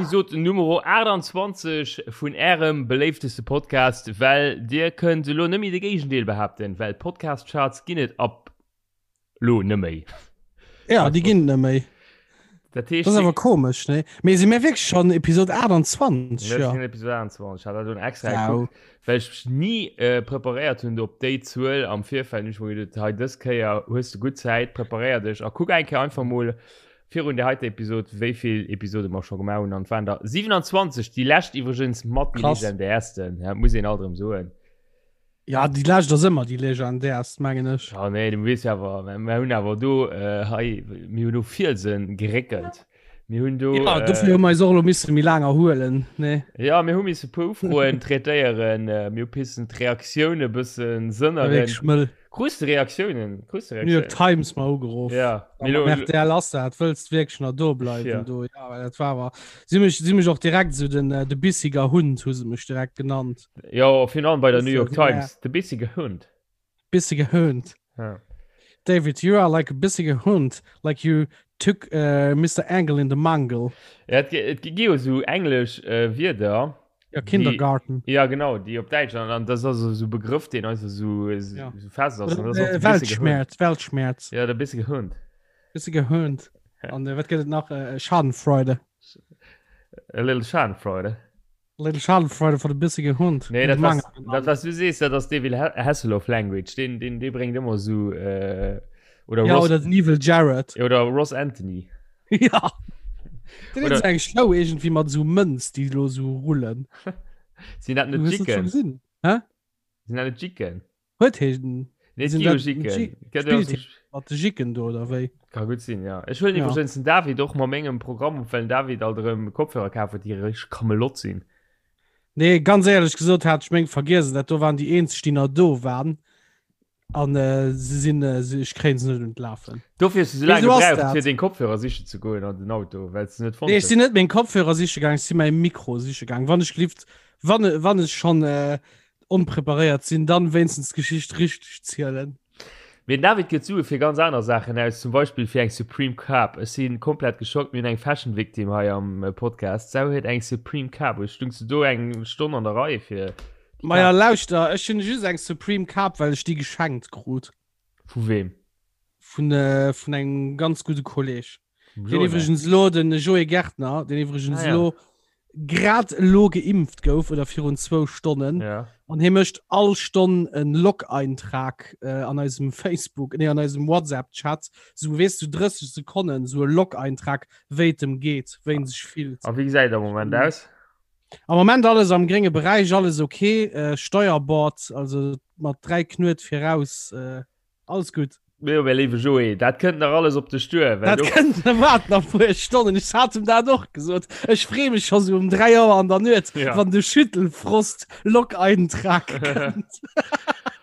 Episode Nummer 28 vun ärem beléifteste Podcast, well dir kënnt elo net méi de Géigendeel behaapten, well Podcast-Charts ginn et ab lo net méi. Ja, déi ginn et net méi. Dat heescht, Das ass awer komesch, ne? Mee si mir wierklech schonn Episode 28? Ja. Ja. Episode 28, ich hat dat schon extra Wow. geguckt, well ich mech nie äh, preparéiert hunn op déi Zuel am Virfeld. Hun ich mir gedacht, hei dës Kéier hues du gutt Zäit, preparéier dech a kuck eng Kéier einfach mol virun der heiter Episode, wéi vill Episode mer scho gemaach hunn. An et waren der 27, déi lescht iwwregens mat déi Krass. legendärsten, ja, muss een alt erëm soen. Ja, déi lescht ass ëmmer déi legendärst, mengen ech. Ja, nee, du weess ja awer, mir hunn awer do äh, hei, mir hunn do Fielsen geréckelt. Mir hunn do. Ja, dofir hu mer eis och elo misse méi laang erhuelen, nee? Ja, mir hu misse puer Ufroen traitéieren, äh, mir hu pissen d'Reaktioune bëssen War wierklech sënneren. mëll. Krus de Reaktiounen? Krus de New York Reaktiounen? Times mer ugeruff. Ja, Am RTL ass dat, wëlls du wierklech nach do bleiwen Ja. do? Ja, well dat war awer. Si hu mech, si hu mech och direkt esou den, äh, de bissiger Hund hu se mech direkt genannt. Jo, virun allem bei der New York Bissige Times, de bissige Hund. Bissige Hund. Ja. David, you are like a bissige Hund, like you took uh, Mr. Engel in the Mangel. Ja, et, et gi jo sou englesch äh, Wierder. Ja, Kindergarten. Déi, ja, genau, déi op Däitsch an, an das ass so Begrëff, deen einfach so, so, Ja. so fest ass. An das Äh, ass de bissige Hund. Weltschmerz, Weltschmerz. Ja, der bissige Hund. Bissige Hund. Ja. An äh, wat gëtt et nach? Äh, Schadenfreude. A little Schadenfreude. Little Schadenfreude von de bissige Hund. Nee, dat was, dat was du sees, dat ass David Hasselhoff Language. Den, den, den bréngt ëmmer so äh, oder Ja, Ross, oder den Evil Jared. oder Ross Anthony. Ja. Den Oder- huet eng Show irgendwie mat so Mënz, déi lo so rullen. Sinn dat net Du hues dat schon Jicken? gesinn? Hä? Sinn dat net Jicken? Huet heen Nee, Sinn gi jo dat Jicken. Ji- Gëtt jo Spillt so- mat de Jicken do oder wéi? Ka gutt sinn, ja. Ech huelen Ja. iwwregens den David och mat mengem Programm op, well den David alt erëm Kopfhörer kaf huet, déi richteg Kamelott sinn. Nee, ganz éierlech gesot hat ech meng vergiess. Dat do waren déi eenzeg, déi nach do waren. An äh, se sinn, äh, se, ech kréien se net un d'Lafen. Dofir hues du sou laang Wéi sou ass gebraucht, dat? fir deng Kopfhörer sichen ze goen an den Auto, well s de net fonnt Nee, ech hues. sinn net meng Kopfhörer siche gaang, ech si mäi Mikro siche gaang. Wann ech gelift, wann, wann ech schonn äh, onpreparéiert sinn, dann wéinstens d'Geschicht richteg zielen. Mee den David gëtt Sue fir ganz aner Saachen aus, zum Beispill fir eng Supreme Kap. Ech si komplett geschockt, mir hunn eng Fashion Victim hei am Podcast. D'Sau huet eng Supreme Kap u. Stungs du do eng Stonn an der Rei fir déi Maja Kap? lauschter, ech hunn just eng Supreme Kap, well ech déi geschenkt krut. Vu weem? Vun, vun engem ganz gudde Kolleg. Vum Deen Jona. iwwregens elo, den Joé Gärtner, deen iwwregens Ah, ja. elo grad elo geimpft gouf oder virun zwou Stonnen. Ja. An hie mécht all Stonn en Log-Eintrag äh, an eisem Facebook, nee, an eisem WhatsApp-Chat. Sou, weess du, 30 Sekonnen, sou e Log-Eintrag, wéi et em geet, wéi en sech fillt. A wéi gesäit et am Moment aus? Am Moment alles am grénge Beräich, alles okay. Äh, Steuerbord, also mat 3 Knuet viraus. Äh, Alles gutt. Jo, mäi léiwe Joé, dat kënnt nach alles op dech duer. Dat kënnt, waart nach puer Stonnen. Ech hat em dat och gesot. Ech free mech scho sou um 3 Auer an der Nuet, ja. wann de Schüttelfrost-Log-Eintrag kënnt.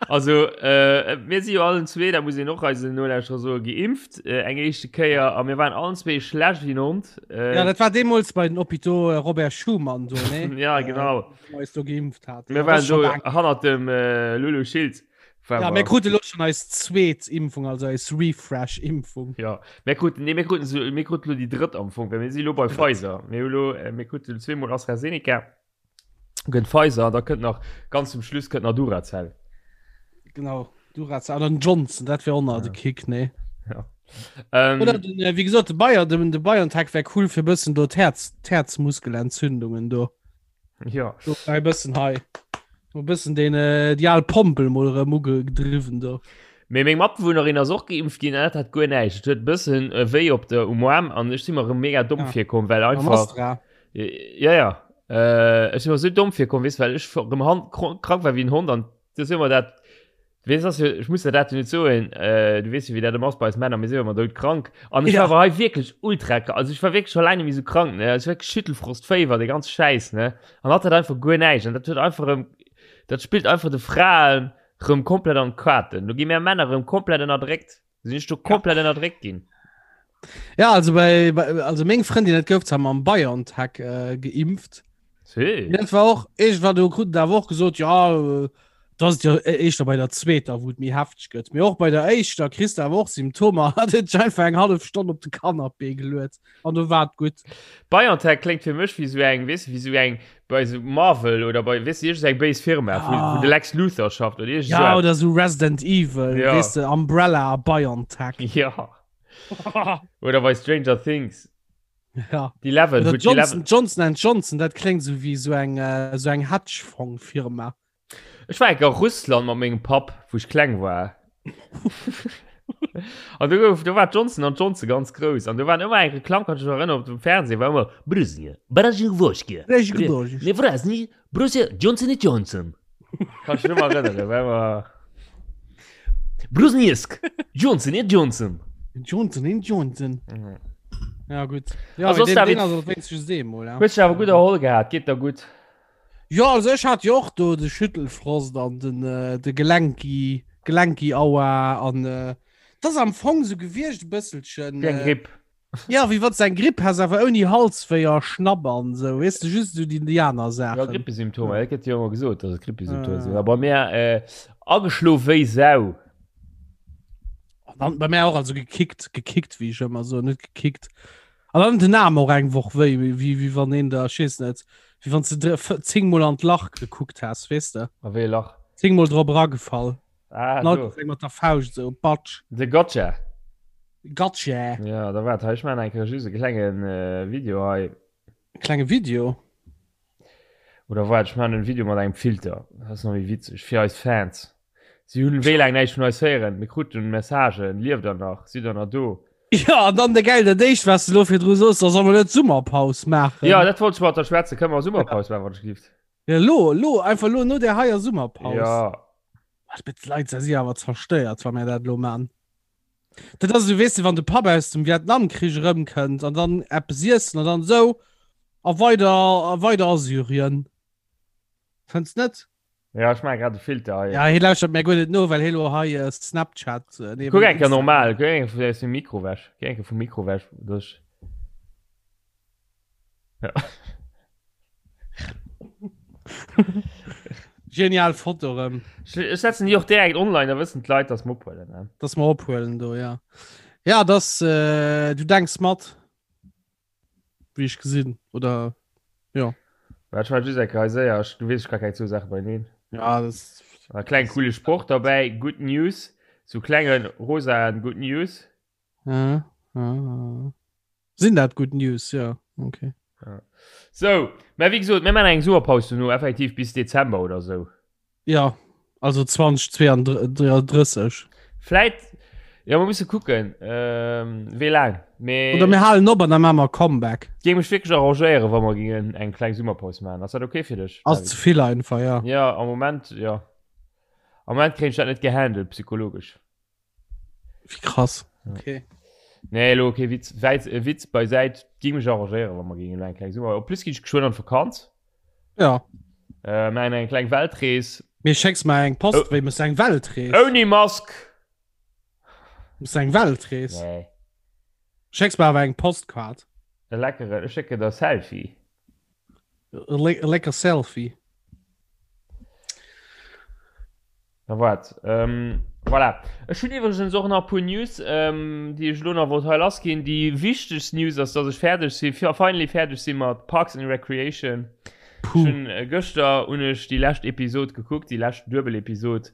Also, äh, mir si jo allen zwee, da muss een och eisen Nolauschterer soen, geimpft, äh, eng éischte Kéier. A mir waren allen zwee schlecht wéi en Hond. Äh, ja, dat war deemools bei den Hôpitaux äh, Robert Schuman do, ne? ja, genau. Äh, eis do geimpft hat. Mir Ja, waren das ist schon do lang. hannert dem äh, Lulu Schiltz. Ja, mir kruten elo schon eis zweet Impfung, also eis Refresh-Impfung. Ja, mir kruten, nee, mir kruten, so, mir kruten lo déi drëtt am Fong, well mir si lo bei Pfizer. Mir hu lo, äh, mir kruten zweemol AstraZeneca, gëtt Pfizer, da kënnt nach, ganz zum Schluss kënnt nach Duracell. Genau, Duracell oder den Johnson, dat wär och nach de Kick, nee. Ja. Ähm, Oder den, äh, wéi gesot, de Bayer, den, de BioNTech wär cool fir bëssen do d'Häerz, d'Häerzmuskelentzündungen do. Ja. Do e bëssen hei. E bëssen den äh, déi al Pompel mol erëm ugedriwwen do. Mee meng Matbewunnerin ass och geimpft ginn an dat hat guer näischt. Et huet e bëssen äh, wéi op der um Aarm an ech si mer erëm mega domm Ja. virkomm, well Am einfach Astra. Ja, ja. Äh, ech si mer sou domm virkomm, weess, well ech erëm hand krank war wéi en Hond an du si mer dat Weess ass jo, ech muss der dat jo net soen, äh, du weess jo wéi dat ëmmer ass bei eis Männer, mir si jo ëmmer doudkrank. An ech Ja. war awer hei wierklech ultra krank, also ech war wierklech scho laang net méi sou krank, ne, also wierklech Schüttelfrost, Féiwer, dee ganze Schäiss, ne. An hatt hat einfach guer näischt an dat huet einfach erëm, dat spillt einfach de Fraen rëm komplett an d'Kaarten. Do gi mär Männer rëm komplett ënnerdréckt. Sinn ech do komplett ënnerdréckt ginn. Ja, also bei, bei also meng Frëndin dat gouf zwar mam BioNTech äh, geimpft. Sí. Dat war och irgendwann do kruten awer och gesot ja äh, Da ass et jo éischter bei der zweeter, wou et méi hefteg gëtt. Mee och bei der éischter kriss de awer och Symptomer. Hat huet sech einfach eng hallef Stonn op de Canapé geluet an do war et gutt. BioNTech kléngt fir mech wéi sou eng, weess de, wéi sou eng bei sou Marvel oder bei, weess de, iergend eng béis Firma, wou, wou de Lex Luthor schafft oder iergend sou Ja, oder sou Resident Evil, Ja. weess de, Umbrella a BioNTech. Ja. Oder bei Stranger Things. Ja. Die Eleven, Oder wou Johnson, d'Eleven. Johnson and Johnson, dat kléngt sou wéi sou eng, äh, sou eng Hedgefonds-Firma. Ech war enk a Russland mat mengem Papp, wou ech kleng war. An do gouf, do war Johnson an Johnson ganz grouss. An do waren ëmmer eng Reklamm, kann ech mech erënneren, op dem Fernseh war ëmmer Brusnje, Brasjnwoschke, Nevrasny, Brusje, Johnson et Johnson. Kann ech mech ëmmer erënneren, war ëmmer Brusniesk, Johnson et Johnson. Johnson et Johnson. Mhm. Ja, gutt. Ja, Also, deen, David, deen ass wéinstens just eemol, ja. Hues dech awer gutt erholl gehat, geet der gutt? Jo, also ech hat jo och do de Schüttelfrost an den äh, de Gelenki, Gelenki-Aua an äh, das am Fong so gewiescht e bësselchen. Wéi eng Äh, Gripp. ja, wéi wann s eng Gripp häss, awer ouni Halswéi a Schnapp an sou, weess de, just sou déi Ja, Indianersaachen. Grippesymptomer, dat gëtt jo ëmmer gesot, dass et Grippesymptomer sinn. Äh. A bei mir äh, ageschlof wéi Sau. An dann bei mir och also gekickt, gekickt, wéi ech ëmmer soen, net gekickt. An dann den Arm och eng Woch wéi, wéi, wéi wann een da, ech weess net, wéi wann s de zéngmol an d'Lach gekuckt häss, weess de? A wéi e Lach? Zéngmol drop eragefall. Ah, An all do. Kéiers eng mat der Fauscht esou, batsch. De Gotcha. Gotcha. Ja, da waart, hei, ech maachen eng Kéier just e klenge Video hei. E klenge Video? Oder waart, ech maachen en Video mat engem Filter, dat ass nach méi witzeg, fir eis Fans. Si hunn wéi laang näischt vun eis héieren. Mir kruten Messagen, Lieft der nach? Sidd der nach do? Jo, an dann de gäil, dat éischt, wat s de elo virdru soos, da soll mer net Summerpaus maachen. Jo, dat wollt ech mat der schwätzen. Kënne mer Summerpaus maachen, wann ech gift? Ja, elo, elo, einfach elo no där heier Summerpaus. Jo. Ach, bitte, d'Leit si awer zerstéiert, wa mir dat elo maachen. Dat ass esou, weess de, wann de Papp aus dem Vietnamkrich erëmkënnt an dann eppes iessen an dann esou, a weider, a weider a Syrien. Fënns net? Ja, ech maache grad de Filter hei. Ja, hie lauschtert mir guer net no, well hie lo hei äh, Snapchat. Äh, nee, Kuck eng Kéier Instagram. normal, kuck eng Kéier aus dem Mikro weg. Geh eng Kéier vum Mikro weg. Duerch. Ja. Genial Foto rëm. Ech, ech setzen déi och direkt online, da wëssen d'Leit, dass mer ophuelen. Ne? Dass mer ophuelen do, ja. Ja, das, äh, du denks mat. Wéi ech gesinn oder ja. Wat ech war just eng Kéier séier, ech, du weess, ech ka keng zwou Saache beieneen. Ja, das E kleng coole Sproch derbäi, Good News, sou klenge rosaen Good News. Ja, ja, ja. Sinn dat Good News, ja, okay. Ja. Sou, mä wéi gesot, mir maachen eng Summerpaus dono, effektiv bis Dezember oder sou. Ja, also 2032. Vläit, ja, mer musse kucken, ähm, wéi laang. Mee Oder mir halen op an da maache mer e Comeback. géing mech wierklech arrangéieren, wa mer gingen eng kleng Summerpaus maachen. Ass dat okay fir dech, Ass David? ze vill einfach, ja. Ja, am Moment, ja. Am Moment kréien ech dat net gehandelt, psychologesch. Wie krass. Okay. Nee, elo kee Witz, Wäiz, äh, Witz beisäit, géing mech arrangéieren, wa mer gingen elo eng kleng Summer. En plus ginn ech geschwënn an d'Vakanz. Ja. Äh, maachen eng kleng Weltrees. Mir schécks mer eng Post, Oh. wéi muss eng Weltrees? Ouni Mask! Muss eng Weltrees? Nee. Schécks mer awer eng Postkaart. E leckere, ech schécken der Selfie. E le e lecker Selfie. Na waart, ähm, voilà. Ech hunn iwwregens och nach e puer News, ähm, déi ech elo nach wollt hei lassginn. Déi wichtegst News ass, dass ech fäerdeg si, finally fäerdeg si mat Parks and Recreation. Ech Puh. hunn äh, gëschter hunn ech déi lescht Episod gekuckt, déi lescht Duebel-Episod.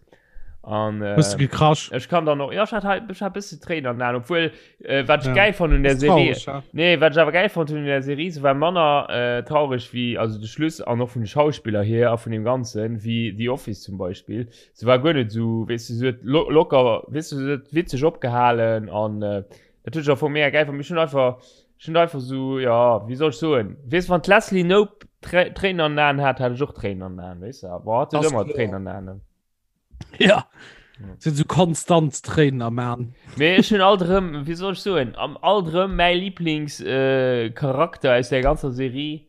An äh, Hues du gekrasch? ech kann dann och, ja, ech hat hei, ech hat e bësse Tréinen an den Aen, obwuel, äh, wat ech Ja. gäil fonnt un der Ass Serie, traurig, ja. Nee, wat ech awer gäil fonnt hunn un der Serie, se war manner äh, traureg wéi, also de Schluss an och vun de Schauspiller hier a vun deem Ganzen, wéi The Office zum Beispill. Se war guer net esou, weess de, se huet lo locker, weess de, se huet witzeg opgehalen an äh, dat hunn ech am Fong mega gäil fonnt. Mee ech hunn einfach, ech hunn einfach esou, ja, wéi soll ech soen, weess, wann d'Leslie Knope Trä Tréinen an den Aen hat, hat ech och Tréinen an den Aen, weess de. Bon, hatt huet Ass ëmmer kloer. Tréinen an den Aen. Ja. Sinn sou konstant Tréinen am Aan. Mee ech hunn alt erëm, wéi soll ech soen, am alt erëm mäi Lieblingscharakter äh, aus der ganzer Serie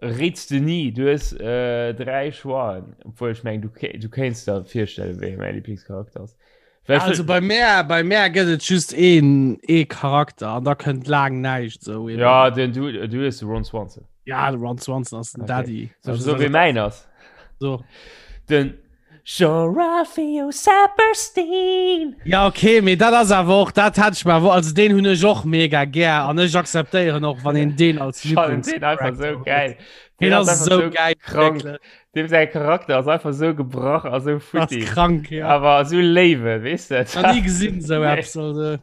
réits de ni. Du hues äh, dräi Choixen, obwuel ech meng, du, du kéints der virstellen, wéi mäi Lieblingscharakter ass. Well also bei mär, bei mär gëtt et just een, ee Charakter an da kënnt laang näischt sou. Ja, den, du, du hues de Ron Swanson. Ja, de Ron Swanson ass den Okay. Daddy. Soll ech soen, wéi mäin ass? So. Den. Jean-Ralphio Saperstein. Ja okay, mee dat ass awer och dat hat ech mer awer also deen hunn ech och mega gär an ech akzeptéieren och wann een deen als Ech fannen deen einfach sou geil. Deen ass esou geil krank. wierklech. Deem säi Charakter ass einfach sou gebrach a sou Ass futti. krank ja. Awer sou léiwe, weess de. Nach ni gesinn sou Nee. eppes also.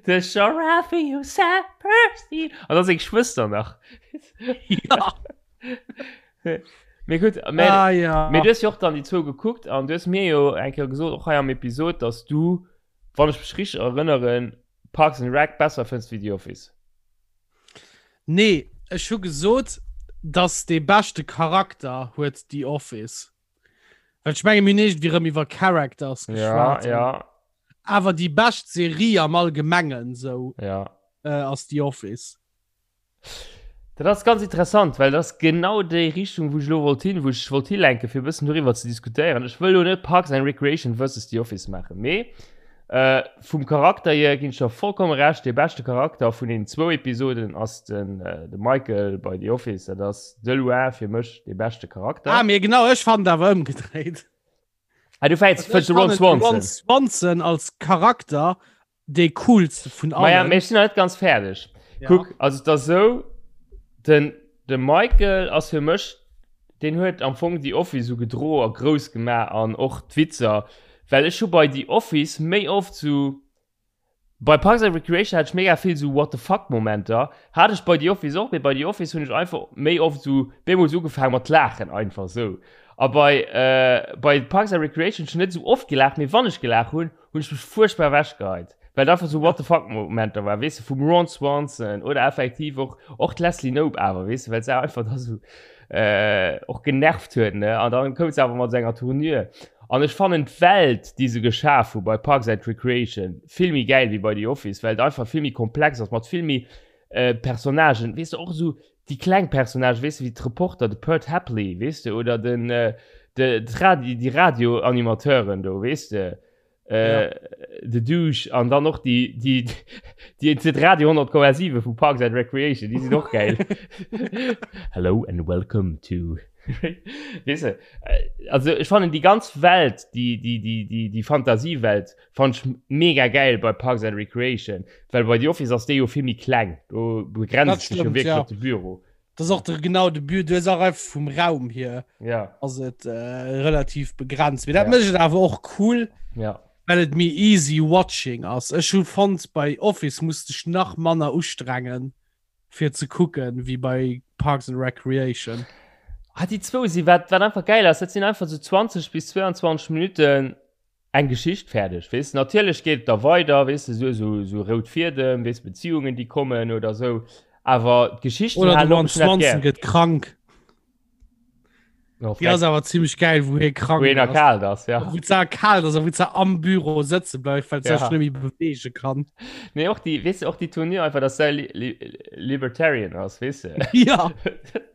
De Jean-Ralphio Saperstein. An da seng Schwëster nach. Ja. Mee gutt, mä Ah ja. Mee du hues jo och dann déi zwou gekuckt an du hues mir jo eng Kéier gesot, och hei am Episod, dass du, wann ech mech richteg erënneren, Parks and Rec besser fënns wéi The Office. Nee, ech hu gesot, dass dee beschte Charakter huet The Office. Well ech menge mir hunn iergendwéi rëm iwwer Characters Ja, geschwat. ja, Awer déi bescht Serie am Allgemengen sou ja. äh, ass The Office. Dat ass ganz interessant, well dat ass genau déi Richtung, wou ech elo wollt hin, wou ech wollt hilenken, fir e bëssen doriwwer ze diskutéieren. Ech wëll elo net Parks and Recreation versus The Office maachen, mee äh, vum Charakter hier ginn ech der vollkomme Recht, dee beschte Charakter vun den zwou Episoden ass den, äh, de Michael bei The Office. Dat ass de loin fir mech dee beschte Charakter. Ah, mee genau, ech fannen et awer ëmgedréit. Ah, du fäits Also fënns de ech Ron fannen de Ron Swanson. Swanson als Charakter dee coolste vun allen. Maja, mee ech sinn nach net ganz fäerdeg. Ja. Kuck, also et ass esou, den, de Michael ass fir mech, deen huet am Fong The Office esou gedro a grouss gemaach an och d'Witzer, well ech hu bei The Office méi oft sou, bei Parks and Recreation hat ech mega vill sou What the fuck Momenter, hat ech bei The Office och, mee bei The Office hunn ech einfach méi oft sou bemools ugefaange mat laachen einfach sou. A bei, bei Parks and Recreation hunn ech net sou oft gelaacht, mee wann ech gelaacht hunn, hunn ech mech fuerchtbar ewechgeheit, well et einfach sou what the fuck Momenter war, weess de, vum Ron Swanson oder effektiv och och d'Leslie Knope awer, weess de, well se einfach da sou äh, och genervt huet, ne, an dann koum se awer mat senger Tournure. An ech fannen d'Welt, déi se geschaf hu bei Parks and Recreation vill méi gäil wéi bei The Office, well et einfach vill méi komplex ass, mat vill méi äh, Personnagen, weess de, och esou déi kleng Personnagen, weess de, wéi d'Reporter, de Pert Hapley, weess de, oder den, äh, de, d'Radi, déi Radioanimateuren do, weess de, äh, Ja. de Douche an dann och déi, déi, déi, déi Radio 100,7 vu Parks and Recreation, déi sinn och geil. Hello and welcome to. Weess de, äh, also ech fannen déi ganz Welt, déi, déi, déi, déi, déi Fantasiewelt fand ech mega geil bei Parks and Recreation, well bei The Office ass déi jo vill méi kleng, do begrenzt Dat sech jo stimmt, wierklech ja. op de Büro. Das ist auch der, genau de Bü du auch einfach vum Raum hier Ja, ass et äh, relativ begrenzt. Mee dat Ja. mécht et awer och cool, ja. well et méi easy watching ass. Ech hu fonnt bei Office musst dech nach manner ustrengen fir ze kucken wéi bei Parks and Recreation. Ah, déi zwou si wat, wat einfach geil ass, dat sinn einfach so 20 bis 22 Minuten eng Geschicht fäerdeg, weess de. Natierlech geet et da weider, weess de, esou esou esou rout Fiedem, weess, Beziehungen, déi kommen oder esou, awer d'Geschichten Oder de halen op, Ron ech hunn dat Swanson gär. gëtt krank. Oh, Déi ass awer zimmlech gäil, wou hie krank Wou hien ass. erkaalt ass, ja. Wou se erkaalt ass a wou se am Büro sëtze bleift, well se Ja. sech net méi beweege kann. Nee, och déi, weess de, och déi Tournure einfach, dass se li li Libertarian ass, weess de. Ja.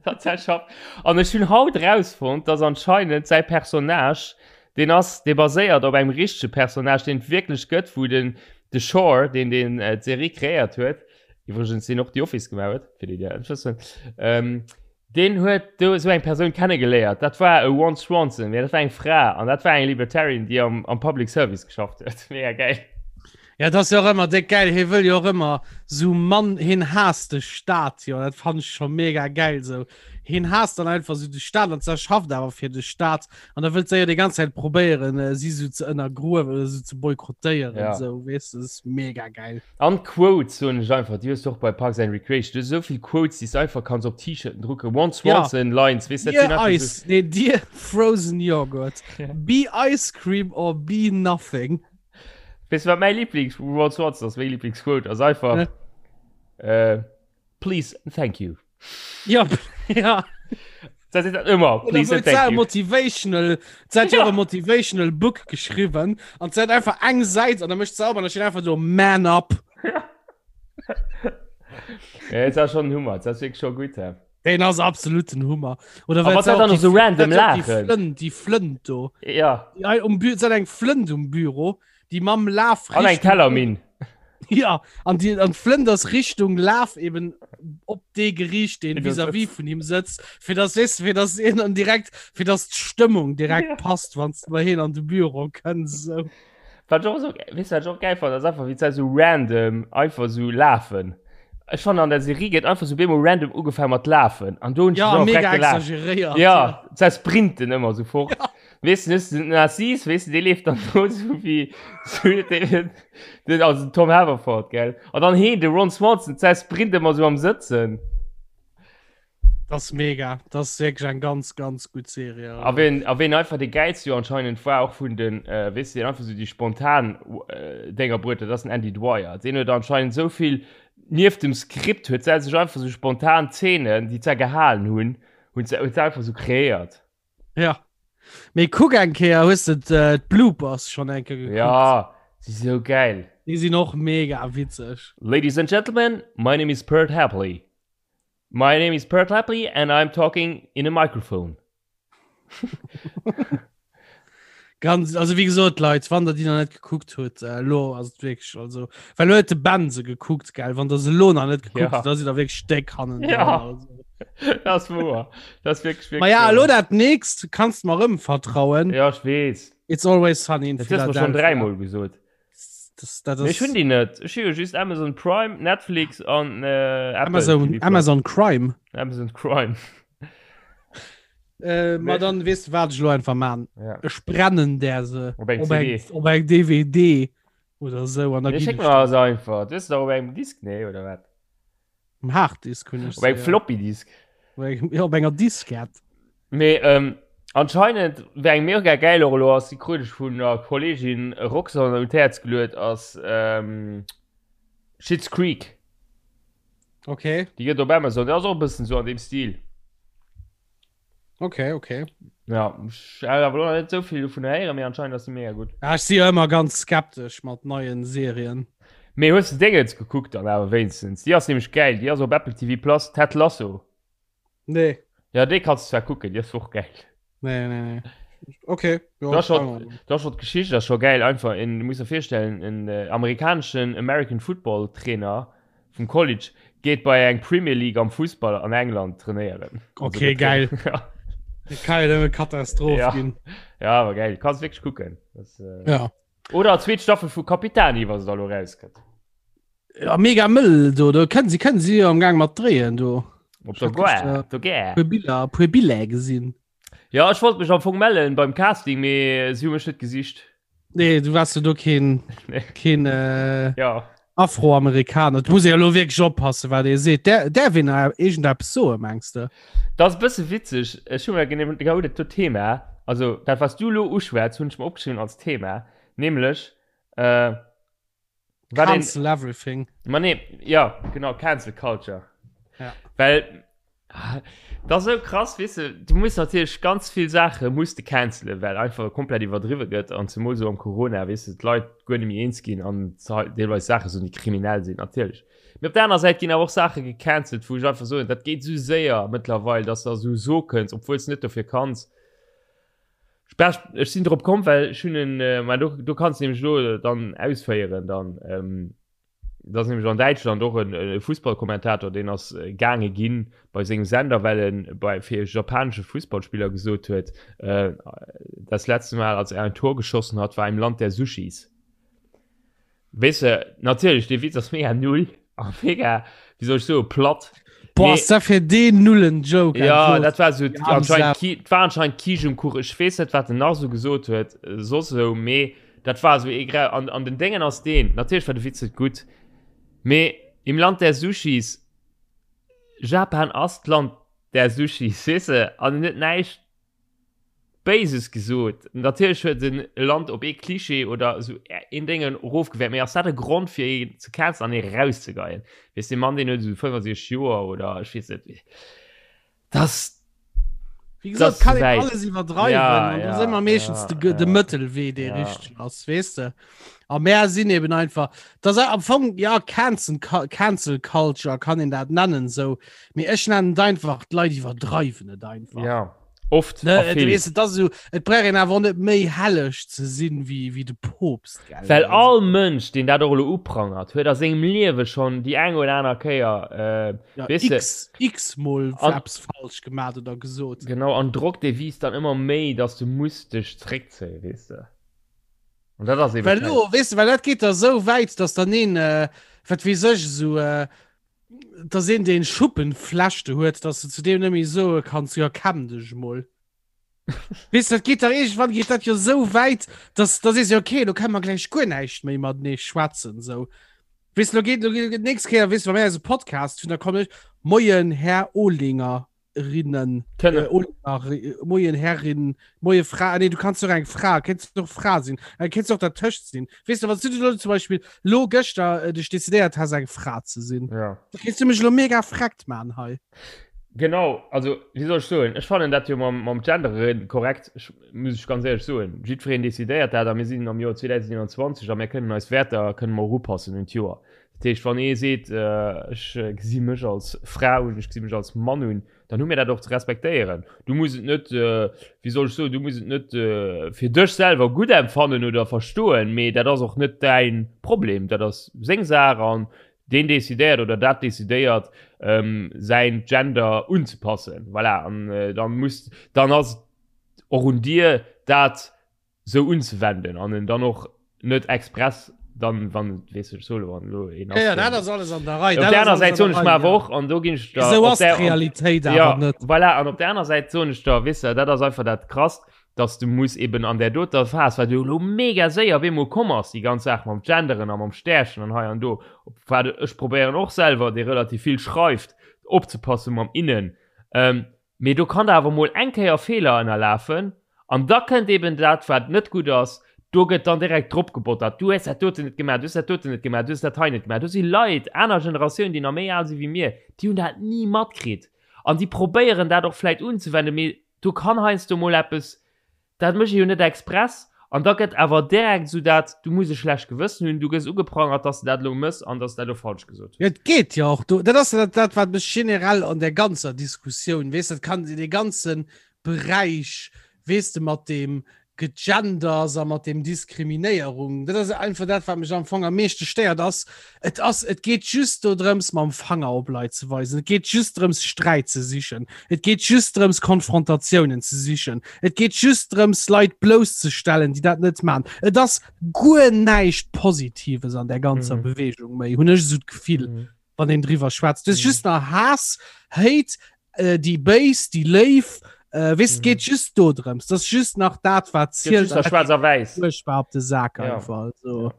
Dat säi Schaff. An ech hunn haut erausfonnt, dass anscheinend säi Personnage Deen ass, dee baséiert op engem richtege Personnage, deen et wierklech gëtt, wou den de Shore, deen deen d'Serie kreéiert huet, iwwregens deen och The Office gemaach huet, fir déi, déi dat net wëssen, ähm, deen huet do esou eng Persoun kennegeléiert. Dat war e Ron Swanson, mee dat war eng Fra an dat war eng Libertarian, déi am am Public Service geschafft huet. Mega gäil. Ja, dat ass jo och ëmmer déck gäil. Hie wëll jo och ëmmer sou Mann, hien haasst de Staat jo, dat fannen ech scho mega gäil sou. Hien haasst dann einfach sou de Staat an se schafft awer fir de Staat an da wëllt se jo déi ganz Zäit probéieren, äh, si sou ze ënnergruewen oder sou ze boykottéieren, Ja. sou, weess de, dat ass mega gäil. An Quotes soen ech einfach, déi hues du och bei Parks and Recreation, du hues esou vill Quotes, déi s du einfach kanns op T-Shirten drucken, Ron Ja. Swanson Lines, weess de, dat sinn Dear einfach sou. Ice, nee, Dear Frozen Yogurt, Ja. be ice cream or be nothing. Weess du wat mäi Lieblings Ron Swanson ass, meng Lieblingsquote ass einfach, Ne? äh, Please and thank you. Ja, ja. Dat seet dat ëmmer, please and thank you. Motivational, se hat jo Ja. e motivational Book geschriwwen an se hat einfach eng Säit an da mécht se op an da steet einfach do Man up. Ja, et ass schon en Hummer, dat ass wierklech scho gutt. hä? Den ass absolut den Hummer. Oder A well wat se dat och dann déi och so Fl- random dat jo och déi laachen. Flënt, déi Flënt do. Ja, Déi ei um Bü se hat eng Flënt um Büro, déi mam Laf an eng Richtung- Tellerminn. Ja an die an d'Flënt ass Richtung Laf eben op dee geriicht, deen vis-à-vis vun him sëtzt, fir dass weess de, fir dass een dann direkt, fir dass d'Stëmmung direkt ja. passt, wann s de bei hien an de Büro kënns esou. Wat ech och esou, weess de wat ech och gäil fannen, ass einfach wéi d'Zäit esou random einfach esou lafen. Ech fannen an der Serie gëtt einfach esou bemol random ugefaangen mat lafen an do hunn ech Ja, mech mega och direkt gelacht. exageréiert. Ja, d'Zäit sprinten ëmmer esou fort. Ja. Weess de, den Narcisse, weess de, dee leeft dann do esou wéi, esou, dee, den, also den Tom Haverford, gell. An dann heen, de Ron Swanson, d'Zäit sprint ëmmer esou am Sëtzen. Das ist mega. Das ist wirklich eng ganz, ganz gut Serie. A ween, a ween einfach de geilste jo anscheinend war, och vun den, äh, weess de, deen einfach sou déi spontan äh, Dénger bruet huet, dat ass den Andy Dwyer. Deen huet anscheinend sou vill nieft dem Skript huet se sech einfach sou spontan Zeenen, déi zwar gehalen hunn, hunn se, huet se einfach sou kreéiert. Ja. Mee kuck eng Kéier, hues de äh, d'Bloopers schon eng Kéier gekuckt? Ja, si sou geil. Déi sinn och mega witzeg. Ladies and gentlemen, my name is Pert Hapley. My name is Pert Hapley and I'm talking in a microphone. Ganz, also wie gesot Leit, wann der déi nach net gekuckt huet, äh, lo ass et wierklech also well lo huet de Ben se gekuckt gell, wann der se lo nach net gekuckt Ja. hutt, da sidd der wierklech déck hannen Ja. also. Das ist wahr. Das ist wirklich, wirklich Ma ja, wahr. lo dat nächst kannst mer rëm vertrauen. Ja, ich weess. It's always sunny in Das hast du schon Philadelphia. dreimal gesot. Das, das Nee, ech hunn déi net. Ech hu jo just Amazon Prime, Netflix an äh, Apple Amazon, TV Plus. Amazon Crime. Amazon Crime. Äh, ma dann wees du wat ech lo einfach man. Ja. Ech brennen der se Op eng op CD. eng, op eng DVD oder sou an da Nee, ginn schéck ech mer der also einfach. Du hues se doch op engem Disk, nee, oder wat? Um Harddisk hunn ech Op engem se, ja. Floppy Disk. Op engem, ja, op enger Diskett. Mee ähm, anscheinend wär eng mega geil och elo ass, déi krut ech vun der Kollegin Roxanne un d'Häerz geluet, ass ähm, Schitt's Creek. Okay. Déi gëtt op Amazon, déi ass och e bëssen sou an deem Stil. Okay, okay. Ja, ech hat awer elo nach net esou vill dovun héieren, mee anscheinend ass déi mega gutt. Ja, ech si jo ëmmer ganz skeptesch mat neien Serien. Mee hues de Dingens gekuckt dann awer wéinstens? Déi ass nämlech gäil, déi ass op Apple TV Plus, Ted Lasso. Nee. Ja, déi kanns du zwar kucken, déi ass och gäil. Nee, nee, nee. Okay. Ja, Da schon, da schon d'Geschicht ass scho gäil einfach en, du muss der virstellen en äh, amerikaneschen American Football Trainer vum College geet bei eng Premier League am Fussball an England trainéieren. Okay, geil. ja. Kann ja nëmme Katastroph Ja. ginn. ja, awer geil, kanns wierklech kucken. Das, äh... Ja. Oder zweet Staffel vu Capitani, wa se da lo rauskënnt. Ja, mega mëll do, do kënnen si kënnen si jo am Gang mat dréien do. Op der Ich hab Gare, gestern- op der Gare. Puer Biller, puer Biller gesinn. Ja, ech wollt mech am Fong mellen beim Casting, mee si hu mech net gesicht. Nee, du warst du do keen, Nee. keen äh, Ja. Afroamerikaner. Du muss ja lo wierklech oppassen, wat ee seet. Der, därf een nach iergendeppes soen, mengs de? Dat ass e bësse witzeg. Ech hu mer genau genau dat do Thema, also dat wat s du elo uschwätz, hunn ech mer opgeschriwwen als Thema, nämlech äh, wat een, Cancel everything. Ma nee, ja, genau, Cancel Culture. Ja. Well, dat ass esou krass, weess de, du muss natierlech ganz vill Saache muss de cancelen, well einfach komplett iwwerdriwwe gëtt an zemol esou am Corona, weess de, d'Leit guer net méi eens ginn an deelweis Saache soen, déi kriminell sinn, natierlech. Mee op der aner Säit ginn awer och Saache gecancelt, wou ech einfach soen, dat geet esou séier mëttlerweil, dass de esou soe kënns, obwuel s de net dofir kanns. Ech, ech sinn drop komm, well ech hunn en, mä do, do kanns de nämlech elo dann ausféieren dann, Dat ass nämlech an Däitschland och en e Fussballkommentator, deen ass gaange ginn bei sengem Sender, well en bei fir e japanesche Fussballspiller gesot huet, äh, das letzte Mal, als er ein Tor geschossen hat, war im Land der Sushis. Weess de, natierlech, dee Witz ass mega null a mega, wéi soll ech soen, platt. Boah, Mee- ass dat fir deen nullen Joke Ja, einfach. dat war so Die arme anscheinend Sau. Ki war anscheinend Kisch um Kuch. Ech weess net, wat den nach so gesot huet, soss esou, mee Dat war sou ee Grau an, an den Déngen ass deen, natierlech war de Witz net gutt, mee im Land der Sushis, Japan ass d'Land der Sushis, weess de, an en huet näischt Béises gesot. Natierlech huet en e Land op ee Klischee oder esou een Déngen erofgewäert, mee ass dat e Grond fir een ze cancelen an ee rauszegeien? Weess, dee Mann deen huet esou 65 Joer oder ech weess net, dat Wie gesagt, Das kann een wäit. alles iwwerdreiwen Ja, an ja, da sind wir meeschtens ja, de, de ja. Mëttelwee dee Ja. richteg ass weess de a mär sinn eben einfach das am Fong ja Cancel Cancel Culture kann een dat nennen sou mee ech nennen et einfach d'Leit iwwerdreiwen et einfach Ja. Oft ne, et, wees, et, so, et brauch een awer net méi helleg ze sinn wéi, wéi de Poopst gell? Well all Mënsch deen dat och elo uprangert huet a sengem Liewe schonn déi eng oder aner Kéier äh, ja, weess de, x, x mol eppes falsch gemaat oder gesot. Genau an Drock dee wiisst dann ëmmer méi, dass du muss dech zréckzéien, weess de. An dat ass eben Well lo, weess de, well dat geet da sou wäit, dass dann een äh, wat weess ech esou äh, dass een deen Schuppenflechte huet, dass du zu deem net méi soe kanns, jo kämm dech mol. Weess dat geet da iergendwann geet dat jo sou wäit, dass da sees jo okay, lo kënne mer gläich guer näischt méi matenee schwätzen sou. Weess lo geet lo geet d'nächst Kéier weess wa mir eise Podcast hunn, da kommen ech, Moien Här Olinger. Rinnen Kënne. äh, Olinger, äh, Moien Herrin, Moie Fra, nee, du kannst doch eng Fra, kennst du doch Fra sinn, äh, kennst du och dertëscht sinn. Weess du, wann du lo zum Beispiel lo gëschter äh, dech decidéiert has eng Fra ze sinn, Ja. da kriss du mech lo mega freckt man hei. Genau, also wéi soll ech soen, ech fannen dat jo mam, mam Genderen korrekt, ech, muss ech ganz éierlech soen. Jiddwereen decidéiert dat a mir sinn am Joer 2021 a mir kënnen eis Wäerter kënnen mer och upassen un d'Joer. Dat heescht, wann ee seet, ech gesi mech als Fra un, ech gesi mech als Mann un, dann hu mir dat och ze respektéieren. Du muss et net, wéi soll ech soen, du muss et net fir dech selwer gutt empfannen oder verstoen, mee dat ass och net däin Problem. Dat ass seng Saach an deen decidéiert oder dat decidéiert, säin Gender unzepassen. Voilà, an dann muss, dann ass et och un dir, dat sou unzewenden an en dann och net express dann wann weess ech solo wann lo een ass. Ja, dat ass alles an der Rei. Op der aner Säit soen ech mer awer och an do ginn ech der Sou ass d'Realitéit awer ja, net. Voilà, an op der aner Säit soen ech der, weess de, dat ass einfach dat Krasst, dass du muss eben an där doter Phas, wat jo elo mega séier op eemol komm ass, déi ganz Saach mam Genderen a mam Stärchen an hei an do, wat ech probéieren och selwer, dee relativ vill schreift, opzepassen mam innen, ähm, Mee do kann der awer mol eng Kéier Feeler ënnerlafen an da kënnt eben dat, wat net gutt ass, do gëtt dann direkt drop gebottert, du hues dat doten net gemaach, du hues dat doten net gemaach, du hues dat hei net gemaach. Do si Leit, aner Generatiounen, déi nach méi al si wéi mir, déi hunn dat ni matkritt an déi probéieren dat och vläicht unzewenden, mee do kann heiansdo mol eppes Dat mécht ee jo net express. An da gëtt awer direkt esou dat, du muss e schlecht Gewëssen hunn, du gëss ugeprangert, dass de dat elo mëss an dass de dat elo falsch gesot hues. Jo, et geet jo och do, dat ass jo dat, dat wat mech generell an där ganzer Diskussioun, weess de, dat kann dee ganze Beräich, weess de, mat deem Gegenders a mat deem Diskriminéierung, dat ass einfach dat, wat mech am Fong am meeschte stéiert, ass, et ass, et geet just dodrëms, mam Fanger op Leit ze weisen, et geet just drëms, Sträit ze sichen, et geet just drëms, Konfrontatiounen ze sichen, et geet just drëms, Leit blousszestellen, déi dat net maachen. Et ass guer näischt Positives an där ganzer mhm. Bewegung méi, hunn ech esou d'Gefill, mhm. wann een driwwer schwätzt. Du mhm. just nach Haass, Hate, äh, déi Béis, déi Léif, äh, weess, mhm. geet just do drëms. Dat ass just nach dat, wat zielt. Schwarz a wäiss. Furchtbar op de Sak ja. einfach. Also. Ja.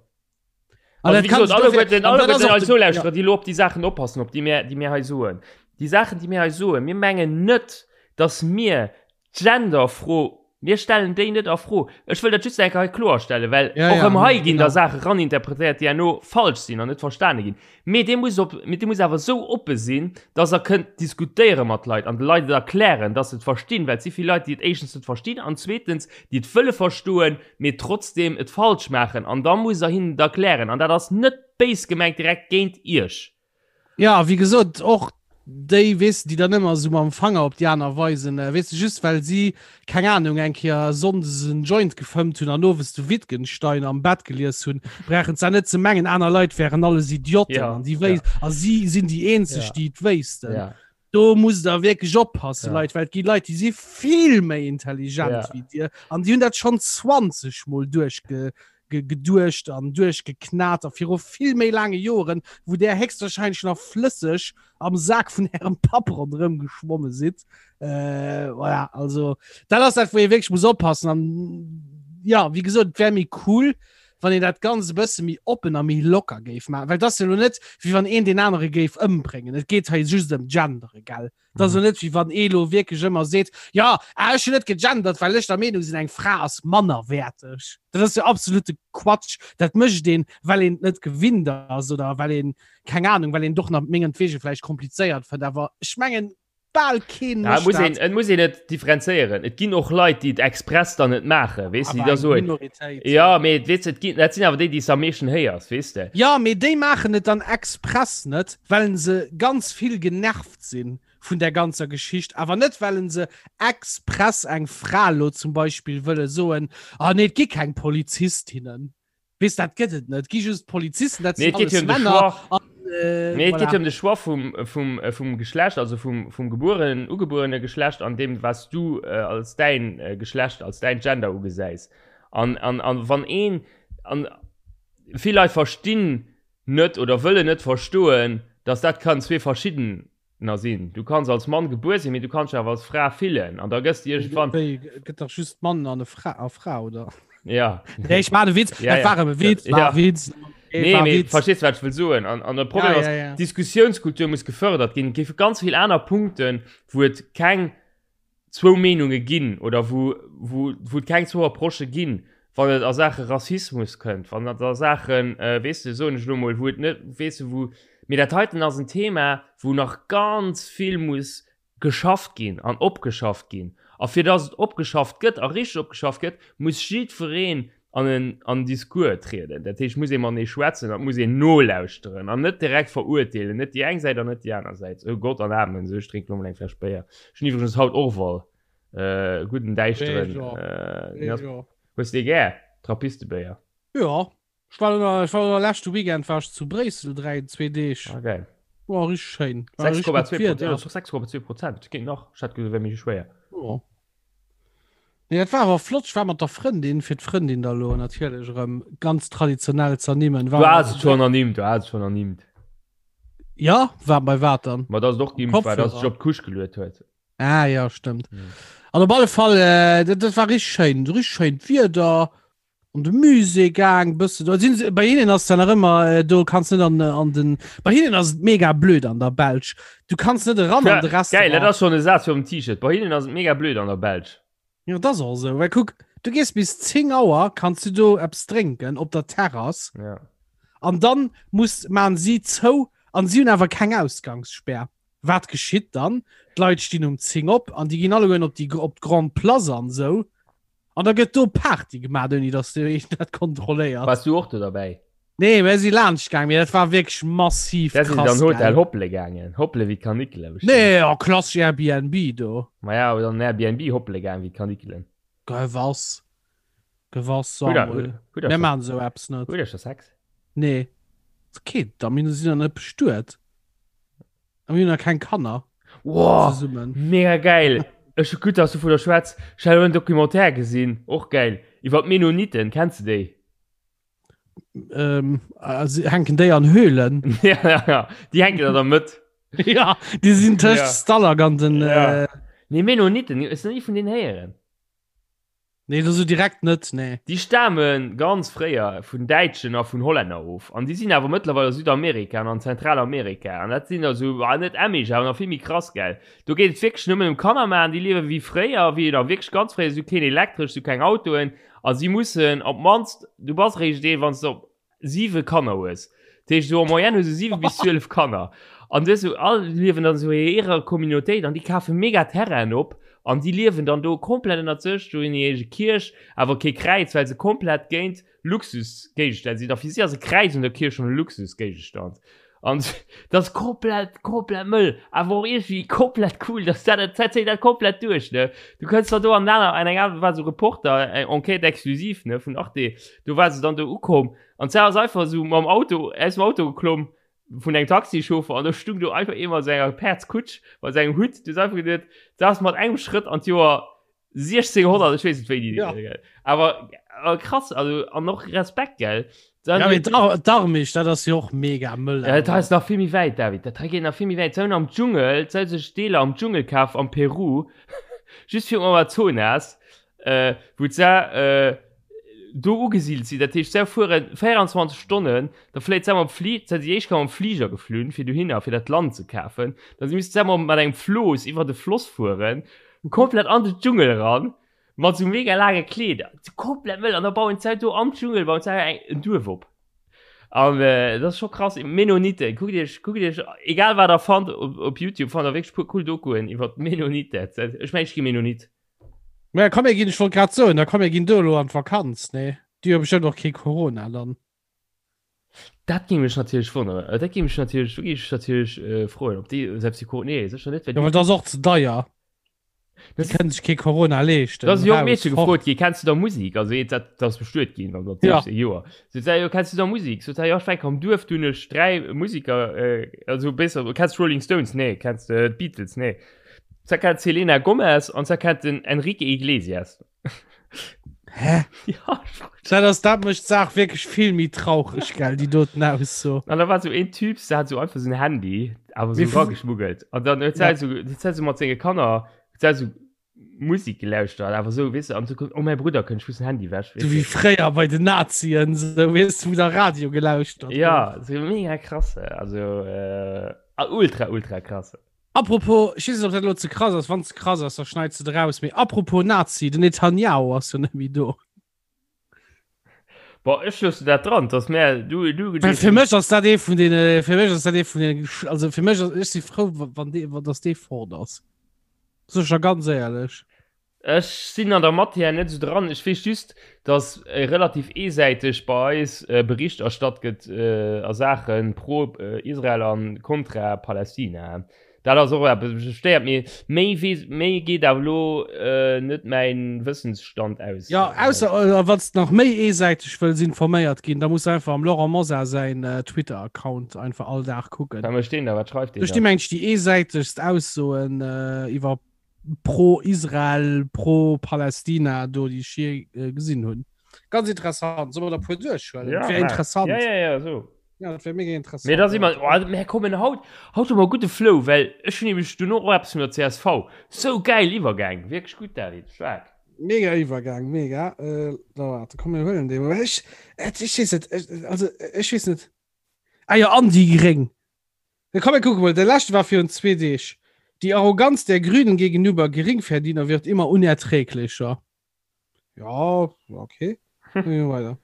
Also, wie gesagt, alleguerten, alleguerten eis Nolauschterer, déi lo op déi Saachen oppassen, op déi mir, déi mir hei soen. Déi Saachen, déi mir hei soen, mir mengen net, dass mir d'Genderfro, mir stellen déi net a Fro. Ech wëll dat just eng Kéier hei kloerstellen, well Ja, och ja, erëm hei ginn da genau. Saache raninterpretéiert, déi herno falsch sinn an net verstane ginn. Mee Dir musst op, mee Dir musst awer esou oppe sinn, dass Der kënnt diskutéiere mat Leit an de Leit et erklären, dass se et verstinn, well et si vill Leit, déi et éischtens net verstinn an zweetens, déi et wëlle verstoen, mee trotzdem et falsch maachen. An da musst Der hinnen et erklären. An dat ass net béis gemengt direkt géint Iech. Ja, wéi gesot, och déi, weess de, déi dann ëmmer esou mam Fanger op déi aner weisen, weess de, just well si, keng Ahnung, eng Kéier sonndes en Joint gefëmmt hunn an owes de Wittgenstein am Bett gelies hunn, brauchen se net ze mengen, aner Leit wären alles Idioten ja, an déi wéis ja. a si sinn déi eenzeg, ja. déi et wéissten. Ja. Do musst der wierklech oppassen, Ja. Leit, well et gi Leit, déi si vill méi intelligent Ja. wéi dir an déi hunn dat schonn 20 Mol duerchge geduecht an duerchgeknat a viru vill méi laange Joren, wou där héchstwahrscheinlech nach flësseg am Sak vun ärem Papp ronderëm geschwomme sidd. Äh, voilà, also dat ass dat, wou ee wierklech muss oppassen. An ja, wéi gesot, et wär méi cool, wann een dat Ganzt e bësse méi oppen a méi locker géif maachen. Well et ass jo elo net, wéi wann een deen anere géif ëmbréngen. Et geet hei just ëm Gendere, gell? Et ass jo net, wéi wann ee lo wierklech ëmmer seet, Jo, ah, ech hunn net gegendert, well ech der Meenung sinn, eng Fra ass mannerwäerteg. Dat ass jo absolute Quatsch. Dat mécht een, well een et net gewinnt ass oder well een, keng Anung, well een et och nach mengetwege vläicht komplizéiert fënnt. Awer ech mengen, bal keen Ja, et muss een, et muss een et differenzéieren. Et ginn och Leit, déi et express dann net maachen, weess de, déi da soen, Minoritéit. Ja, mee weess de, et ginn, dat sinn awer déi, déi s de am meeschten héiers, weess de. Ja, mee déi maachen et dann express net, well se ganz vill genervt sinn. vun der ganzer Geschicht, awer net well se express eng Fra lo zum Beispill wëlle soen, ah nee, et gi keng Polizistinnen. Weess, dat gëtt et net, et gi just Polizisten, dat sinn alles Männer. An, äh, nee, et geet voilà. ëm de Choix vum, vum, äh, vum Geschlecht, also vum, vum gebuerenen, ugebuerene Geschlecht an deem, was du äh, als däin äh, Geschlecht, als däin Gender ugesäis. An, an, an wann een, an vill Leit verstinn net oder wëllen net verstoen, dass dat kann zwee verschiddener sinn. Du kanns als Mann gebuer sinn, mee du kanns dech awer als Fra fillen an da gëss de iergendwann. Wéi, gëtt dach just Mann an e Fra, a Fra, oder? Ja. Nee, ech maachen e Witz, Ja, dat ja. war e Witz, war Ja. e Witz. Nee, Nee, war mee Witz. verstees du, wat ech wëll soen? An, an de Problem Ja, ass, ja, ja. Diskussiounskultur muss gefërdert ginn. Et géife ganz vill aner Punkten, wou et keng zwou Meenunge ginn oder wou, wou, wou et keng zwou Approchë ginn, wann et a Saache Rassismus kënnt, wann et a Saachen, weess de, soen ech elo emol, wou et net, weess de, wou, mee dat heiten ass en Thema, wou nach ganz vill muss geschafft ginn an opgeschafft ginn. A fir datt et opgeschafft gëtt a richteg opgeschafft gëtt, muss jiddwereen an en an Discours trieden. Dat heescht, muss ee matenee schwätzen, et muss een nolauschteren an net direkt verurteelen, net déi eng Säit an net déi aner Säit. Oh Gott an Amen, sou ech drénken elo mol eng Fläsch Béier. Ech hunn iwwregens haut Orval, äh, gudden däischteren. Äh, hues de dee gär, Trappistebéier? Jo, ech war elo, ech war elo leschte Weekend war ech zu Bréissel 3, zwee Deeg. Ah geil. War richteg schéin. War richteg gutt 6,2 Wieder. 6,2 Prozent, geet nach, ech hat gesot, et wär méi schwéier. Jo. Nee, dat war awer flott. Ech war mat der Frëndin, fir d'Frëndin da lo natierlech erëm ganz traditionell z'ernimmen. Du has et schonn ernimmt, du has et schonn ernimmt. Ja, war bei wat dann? Ma dass et och geimpft war, dass et sech op d'Couche geluet huet. Ah ja, stëmmt. An op alle Fall, äh, dat, dat war richteg schéin, richteg schéint Wieder. An de Musée gaang bëssen do sinn se bei hinnen ass dann nach ëmmer äh, do kanns net an äh, an den bei hinnen ass et mega blöd an der Belsch du kanns net eran an de Geil, dat Restaurant ass schon e Saz fir um T-Shirt. Bei hinnen ass et mega blöd an der Belsch. ja dat ass och esou well kuck du gees bis 10 Auer kanns du do eppes drénken op der Terrass Ja. an dann muss maan si zou an si hunn awer keng Ausgangsspär wat geschitt dann d'Leit stinn um 10 op an déi ginn allegueren op déi op d'Grande Place an esou An da gëtt do Party gemaach, ouni datt de een dat kontrolléiert. Wars du och do derbäi? Nee, mir si laanscht gaang, mee dat war wierklech massiv Da sinn krass. dann Hotel Gell? hoppele gaangen. Hoppele wéi d'Kanikele bestimmt. Nee, oh, klassesch Airbnb do. Ma ja, oder an Airbnb hoppele gaang wéi d'Kanikelen. Gewass. Gewass, Hutt der, Samuel. hutt der Mir scho, maachen esou eppes net. hutt der scho Sex? Nee. Okay, da mir sinn der net bestuet. A mir hunn nach keng Kanner. Wow, zesummen. Mega geil. Ech gutt, dass du vun der schwätz. Ech hat en Documentaire gesinn, och geil, iwwer d'Mennoniten. Kenns du déi? Ähm, also, hänken déi an Höhlen? ja, ja, ja. Déi hänken an der Mëtt. ja, déi sinn tëscht ja. Stalag an den. Ja. Äh... Nee, Mennoniten, hues du ni vun deenen héieren? Nee, das so direkt net, nee. Déi stame ganz fréier vun Däitschen a vun Hollänner of. An déi sinn awer mëttlerweil a Südamerika an an Zentralamerika. An dat sinn also, ah, net Amish, awer nach vill méi krass, gell. Do geet et wierklech nëmmen ëm Kanner maachen. Déi liewe wéi fréier, wéi nach wierklech ganz fréier. Si hu keen Elektresch, si hu keng Autoen. A si mussen op d'mannst, du bass eréischt een, wann s de op 7 Kanner hues. Dat heescht, esou en moyenne hu se 7 bis 12 Kanner. An dës esou all liewen dann esou a hirer Communautéit an déi kafe mega Terrainen op an déi liewen dann do komplett ënnert sech. Do hunn déi eege Kierch, awer kee Kräiz, well se komplett géint Luxusgéigestänn sinn. A fir si ass e Kräiz un der Kierch schonn e Luxusgéigestand. An dat ass komplett, komplett mëll, awer och iergendwéi komplett cool, dass dat, dat zéit dat komplett duerch, ne. Du kënns dann do an aner, an eng aner, war esou Reporter, eng Enquête exclusive, ne, vun Arte, do war se dann do ukomm an d'Sar ass einfach esou mam Auto, aus dem Auto geklomm vun engem Taxichauffer an do stung do einfach ee mat senger Päerdskutsch, mat sengem Hutt, du hues einfach geduet, dat ass mat engem Schrëtt an d'Joer 1600, ech weess net wéini Ja. gell. Awer awer krass, also an och Respekt, gell. Dann Ja, mee d'Ar- d'Armisch, dat ass jo och mega mëll. Ja, dat hei ass nach vill méi wäit, David. Dat hei geet nach vill méi wäit. Se hunn am Dschungel, se hu sech Deeler am Dschungel kaf am Peru, just virum Amazonas, äh, wou se äh, do ugesidelt sinn. Dat heescht, se fuere 24 Stonnen, da fléit se mam Fli, se si éischt mam Fliger geflunn, fir dohinner, fir dat Land ze kafen. Da si misste se mat engem Flooss iwwer de Floss fueren. Komplett an de Dschungel eran, mat sou mega laange Kleeder, komplett mëll, an da bauen se do am Dschungel bauen se eng en Duerf op. An äh, dat ass scho krass. Mennoniten, kuckt iech, kuckt iech, egal wat der fannt op, op YouTube, fannt der wierklech puer cool Dokuen iwwer d'Mennoniten. Ech meng, ech gi Mennonit. Ma komm, mir ginn, ech wollt grad soen, da komm, mir ginn do elo an d'Vakanz, nee? Déi hu bestëmmt och kee Corona dann. Dat géing mech natierlech wonneren. Äh, dat géing mech natierlech, do géing ech natierlech äh, froen, ob déi selbst déi Corona, nee, sécher net, well Ja, déi well dat ass och ze deier. Das Die können sich kein Corona leeschten. Da ass e jonkt Raus, Meedche fort. gefrot ginn, Kenns du da Musik? Also eent, dat dat ass bestuet ginn an dat Ja. 16 Joer. Sot se, jo, kenns du da Musik? Sot se, jo, ech war am Duerf, du hunn ech 3 Musiker, äh, also besser, kenns du Rolling Stones? Nee. Kenns de d'Beatles? Nee. Se kennt d'Selena Gomez an se kennt den Enrique Iglesias. Hä? Ja, Dat ass, dat mécht d'Saach wierklech vill méi traureg, gell, déi doten Ausso. An da war so een Typ, der hat so einfach so ein Handy, awer so Wie- rageschmuggelt. An dann huet Ja. ja. so, huet se so mat senge Kanner, huet se so Musik gelauschtert, awer so, weess du, an so kommt, oh mäi Brudder kënnt, ech muss den Handy wäsch, So wéi fréier bei den Nazien, so, weess du, wou der Radio gelauschtert gouf. Ja, so mega krass, also äh, ultra, ultra krass. Apropos, ech weess net, ob dat elo ze krass ass, wann ze krass ass, da schneits de et eraus, mee apropos Nazi, den Netanyahu ass jo net méi do. Bon, ech loosse dat dran, dass mär, du, du Well fir mech ass dat ee vun deene, fir mech ass dat ee vun deene, also fir mech ass, ech si frou, wann dee, wann dass dee fort ass. Sot ech der ganz éierlech. Ech sinn an der Matière net esou dran. Ech weess just, datt relativ eesäiteg bei eis Bericht erstatt gëtt a Saache pro Israel a kontra Palästina. Dat ass och eppes, wat mech stéiert. Mee méi weess, méi geet awer elo net mäin Wëssensstand aus. Jo, ausser wann s de nach méi eesäiteg wëlls informéiert ginn, da muss de einfach am Laurent Mosar säin Twitter-Account einfach all Dag kucken. Wat mécht deen da? Wat schreift deen Do da? sti mengen ech déi eesäitegst Aussoen iwwer pro Israel, pro Palästina do déi ech je äh, gesinn hunn. Ganz interessant. Soll mer der puer duerchhuelen? Ja, wär interessant. Ja, ja, ja, so. Ja, dat wär mega interessant. Mee da si mer, oh, mir kommen haut, haut hu mer gudde Flow, well ech hunn nämlech duerno och eppes vun der csv. Sou geil Iwwergäng, wierklech gutt, David, staark. Mega Iwwergang, mega. Äh, da warte, komm, mir huelen dee mol. Ech, ech weess net, ech, also ech weess net. Ah jo, an déi Gréng. Da komm mir kucke mol, de leschte war virun zwee Deeg. Die Arroganz der Grünen gegenüber Geringverdiener wird immer unerträglicher. Ja, okay. Dann gehen wir weiter.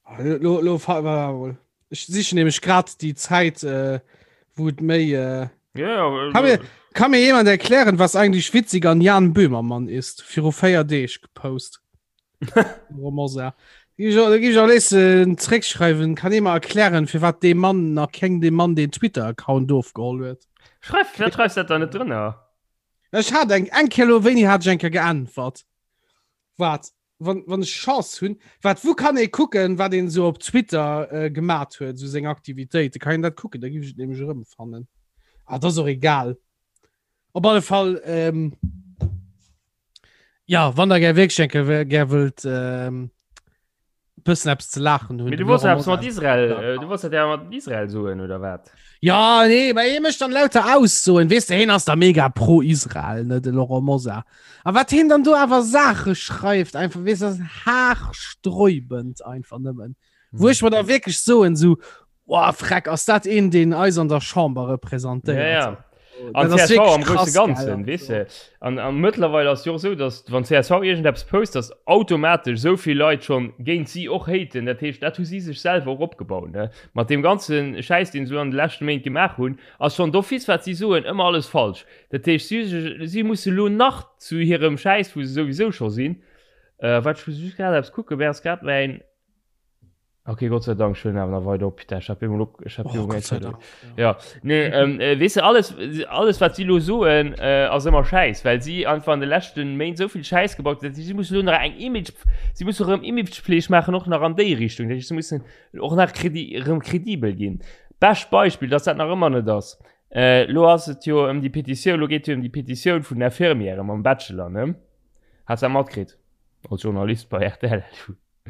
Ah, lo, lo, fa- wa- wa- Ech sichen nämlech grad déi Zäit, äh, wou et méi. Äh, Ja, ja, Kann mir, kann mir jemand erklären, was eigentlich witzig an Jan Böhmermann ist? Viru 4 Deeg gepost. Romosa. Da gi ich auch lesen zréckschreiwen, kann ee mer erklären, fir wat dee Mann nach keng dem Mann den Twitter-Account ofgeholl huet. Schreif, firwat schreifs dat da net drënner? Ech hat eng eng Kéier lo wéini hat ech eng Kéier geäntwert? Wat wann wann ech Chance hunn, wat wou kann ee kucken, wat een esou op Twitter äh, gemat huet, esou seng Aktivitéiten, kann een dat kucken, da giff ech et nämlech erëmfannen. Ah, dat ass och egal. Op alle Fall ähm, Ja, wann der gär wierklech eng Kéier gär wëllt ähm, bëssen eppes ze laachen hunn. Mee du wolls eppes mat Israel, äh, du wolls dat ja mat Israel soen oder wat? Ja, nee, mä hie mécht dann lauter Aussoen, weess de, hien ass da mega pro Israel, ne, de Laurent Mosar. A wat hien dann do awer Saache schreift, einfach, weess de, das ass haarsträubend einfach nëmmen. Wou ech mer da wierklech soen, sou, Boah, freck, ass dat een, deen eis an der Chamber representéiert? Ja, ja. An CSV am grouse Ganzen, weess de. An, an mëttlerweil ass jo och esou, datt wann csv iergendeppes post, datt automatesch esou vill Leit schonn géint si och haten. Dat heescht, dat hu si sech selwer och opgebaut, ne. Mat deem ganze Schäiss, deen se elo an de leschte Méint gemaach hunn, ass schonn d'office, wat si soen, ëmmer alles falsch. Dat heescht, si, si musse lo nach zu hirem Schäiss, wou se souwisou scho sinn, äh, wat, ech muss just grad eppes kucken, wär ass grad mäin. Okay, Gott sei Dank, ich awer nach weiter op. Ich hab immer ich hab oh, Gott sei Dank, ja. ja. Nee, ähm, äh, weißt du, alles, alles wat si lo soen, äh, ass ëmmer Schäiss, well si einfach an de leschten Méint sou vill Schäiss gebaut huet. Si mussen lo nach eng Image, si mussen erëm Imagepfleg maachen, och nach an déi Richtung. Dat heescht, si mussen och nach kredi, erëm kredibel ginn. Bescht Beispill, dass dat nach ëmmer net ass. Äh, lo ass et jo ëm déi Petitioun, lo geet jo ëm déi Petitioun vun den Infirmièren mam Bachelor, ne? Has dat matkritt? Als Journalist bei RTL.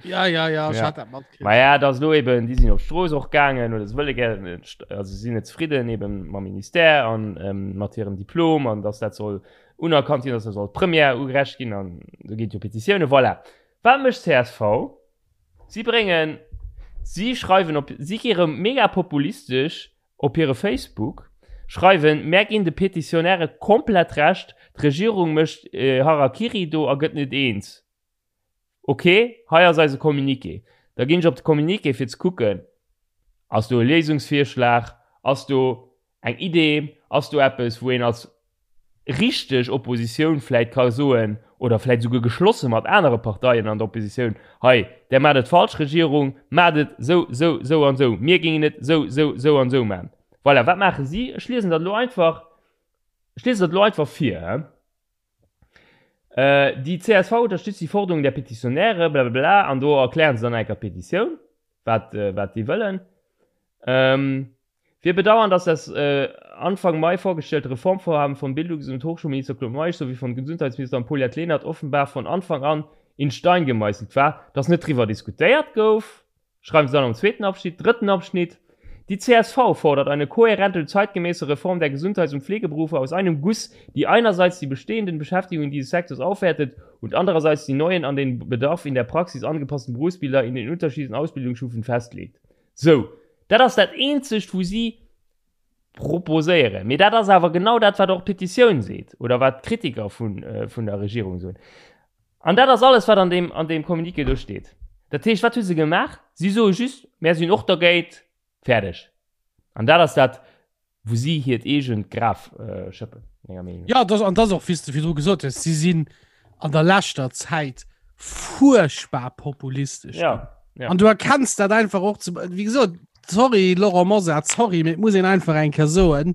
Ja, ja, ja, ja. Ma ja, dat lo eben, déi sinn op d'Strooss och gaangen oder se wëlle gären, also sinn net zefridden eben mam Ministère an ähm, mat hirem Diplom an dass dat soll unerkannt ginn, dass dat soll d'Première ugerecht ginn an do ginn jo Petitioune, voilà. Wat mécht csv? Si bréngen, si schreiwen op, si gi rëm mega populistesch op hire Facebook, schreiwen, mär ginn de Petitionäre komplett Recht, d'Regierung mécht Harakiri do a gëtt net eens. Ok, hei ass eise Communiqué. Da ginn ech op de Communiqué fir ze kucken, ass do e Léisungsvirschlag, ass do eng Idee, ass do eppes wou een als. richteg Oppositioun vläit ka soen, oder vläit esouguer geschlosse mat anere Parteien an der Oppositioun, hei, där maacht et falsch, Regierung, maacht et esou, esou, esou an esou, mir géingen et esou, esou, esou an esou maachen. Voilà, wat maache si? Ech liesen dat elo einfach, ech liesen dat elo einfach vir, hä. Die csv unterstützt die Forderung der Petitionäre, blablabla, an do erklären se dann eng Kéier d'Petitioun, wat, wat déi wëllen. Wir bedauern, dass das Anfang Mai vorgestellte Reformvorhaben von Bildungs und Hochschulminister Claude Meisch sowie von Gesundheitsministerin Paulette Lenert offenbar von Anfang an in Stein gemeißelt war, dass net driwwer diskutéiert gouf, schreiben se dann am zweeten Abschnitt. Drëtten Abschnitt, Die csv fordert eine kohärente und zeitgemäße Reform der Gesundheits und Pflegeberufe aus einem Guss, die einerseits die bestehenden Beschäftigungen dieses Sektors aufwertet und andererseits die neuen, an den Bedarf in der Praxis angepassten Berufsbilder in den unterschiedlichen Ausbildungsstufen festlegt. Sou, dat ass dat eenzegt, wou si proposéieren. Mee dat ass awer genau dat, wat och d'Petitioun seet oder wat d'Kritiker vun, vun der Regierung soen. An dat ass alles, wat an deem, an deem Communiqué do steet. Dat heescht, wat hu se gemaach? Si soe just, Mär sinn och dergéint. Fäerdeg. An dat ass dat, wou si hiert eegent Graf schëppen, menger Meenung no. Jo, dat, an dat ass och, wéi s de virdru gesot hues, si sinn an der leschter Zäit fuerchtbar populistesch ginn. Ja, ja. An du erkenns dat einfach och, zum, wéi gesot, sorry Laurent Mosar, sorry, mee et muss een einfach eng Kéier soen,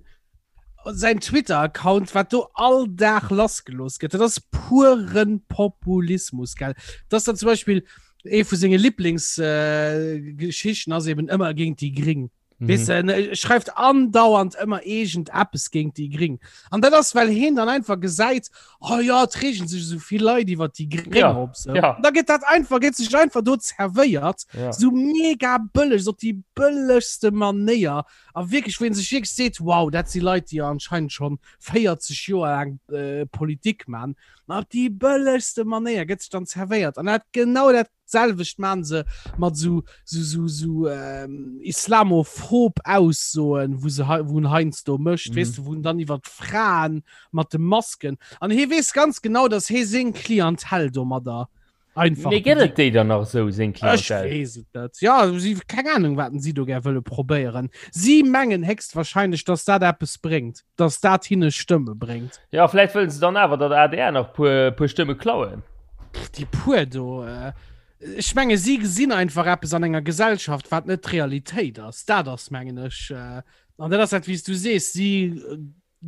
säin Twitter-Account, wat do all Dag lassgelooss gëtt, dat ass puren Populismus, gell. Dat ass dann zum Beispill ee vu senge Lieblingsgeschichten äh, ass eben ëmmer géint déi Gring. Mhm. Weess de, en schreift andauernd ëmmer iergend eppes géint déi Gring. An dat ass, well heen dann einfach gesäit, oh ja, et reegen sech esou vill Leit iwwer déi Gring ja, op. So. Ja. Da gëtt dat einfach, gëtt sech einfach do zerwéiert, ja. so mega bëlleg, so op déi bëllegste Manéier. A wierklech, wou een sech wierklech seet, wow, dat si Leit, déi anscheinend schonn 40 Joer laang äh, Politik man. Ma op déi bëllegste Manéier gëtt sech dann zerwéiert. An dat genau dat selwecht man se mat sou sou sou sou ähm, islamophob Aussoen, wou se wou en heiansdo mécht, mhm. weess de, wou en dann iwwer d'Fraen mat de Masken. An hie weess ganz genau, dass hie seng Klientel domadder einfach. Mee gëtt et déi dann nach esou, seng Klientel? Ech weess et net. Ja, si, keng Ahnung, wat si do gär wëlle probéieren. Si mengen héchstwahrscheinlech, dass dat eppes bréngt, dass dat hinne Stëmme bréngt. Ja, vläicht wëllen se dann awer, datt adr nach puer, puer Stëmme klauen. Déi puer do, ech menge si gesinn einfach eppes an enger Gesellschaft, wat net d'Realitéit ass. Dat ass, mengen ech, an dat ass dat, wéi s du sees, si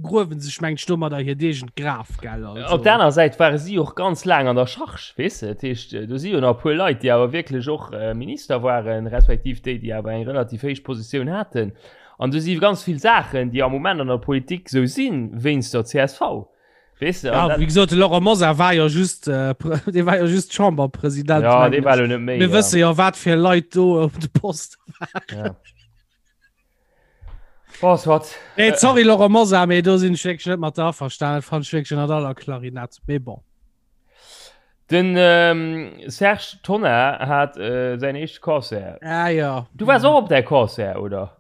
gruewen sech, mengen ech, domadder hiert eegent Graf, gell. Also. Op der aner Säit ware si och ganz laang an der Charge, weess de. Dat heescht, do si jo nach e puer Leit, déi awer wierklech och Minister waren, respektiv déi, déi awer eng relativ héich Positioun haten. An do si ganz vill Saachen, déi am Moment an der Politik esou sinn, wéinst der csv. Weess de, ja, wéi gesot, de Laurent Mosar war jo just, äh, dee war jo just Chamberpresident. Ja, dee war lo net méi. Mir ja. wësse jo, wat fir Leit do op de Poste waren. Ja. Bon, soit. Nee, sorry, Laurent Mosar, mee do sinn ech wierklech net mat der averstanen. Dat fand ech wierklech ënnert aller Klarinett. Mee bon. Den ähm, Serge Tonnar hat äh, säin éischte Concert. Ah, ja. Du waars och op däi Concert, oder?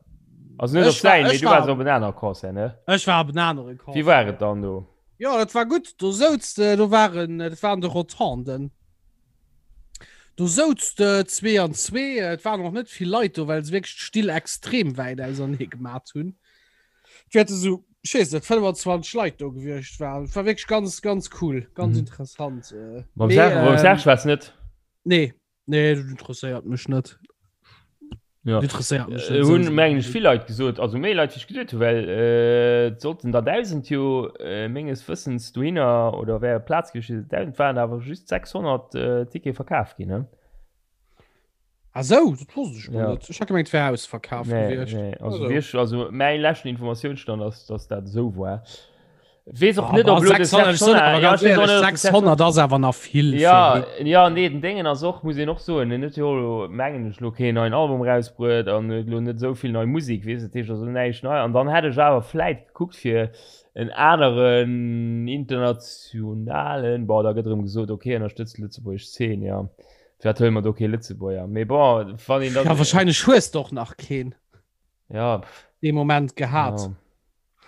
Also net op säin, mee du waars op en anere Concert, ne? Ech war op en anere Concert. Wéi war et dann do? Jo, dat war gutt. Do souz de, do waren, dat waren de Rotonden. Do souz de zwee an zwee. Et waren och net vill Leit do, well se wierklech d'Still extrem wäit ausernee gemat hunn. Et wäerte sou, ech weess net, 25 Leit do gewiescht waren. Et war wierklech ganz, ganz cool, ganz mhm. interessant. Äh. Mam Serge, ähm, Serge war's net? Nee, nee, dat interesséiert mech net. Ja. Interesséiert mech net. Äh, hunn mengen ech vill Leit gesot, also méi Leit wéi ech geduet hunn, well äh, et sollten der 1000 jo äh, menges Wëssens dohinner oder wär Plaz gewiescht, 1000 waren awer just 600 äh, Ticket verkaf ginn. Ne? Ah sou, dat wosst ech mol Ja. net. Ech hat gemengt, et wär ausverkaf Nee, gewiescht. nee. Also, Also. wierklech, also mäi leschten Informatiounsstand ass, dass dat esou war. Weess och Ah, net, bah, ob elo de 600, Serge ech soen Tonnar- awer ja, ganz ech weess och éierlech, net, ob de Serge 600 ass awer nach vill fir Ja, hien. ja, nee, den Déngen ass och, muss een och soen, en huet jo elo, mengen ech, elo keen neien Album erausbruet an huet elo net esou vill nei Musek, weess, dat heescht also näischt nei. An dann hätt ech awer vläit gekuckt fir en aneren internationalen, bon, da gëtt erëm gesot, okay, ënnerstëtzt d'lëtzebuergesch Zeen, ja. Firwat huele mer do kee Lëtzebuerger? Mee bon, wann een dann. Ja, wahrscheinlech hues de och nach keen. Ja, pff. Dee Moment gehat. Ja.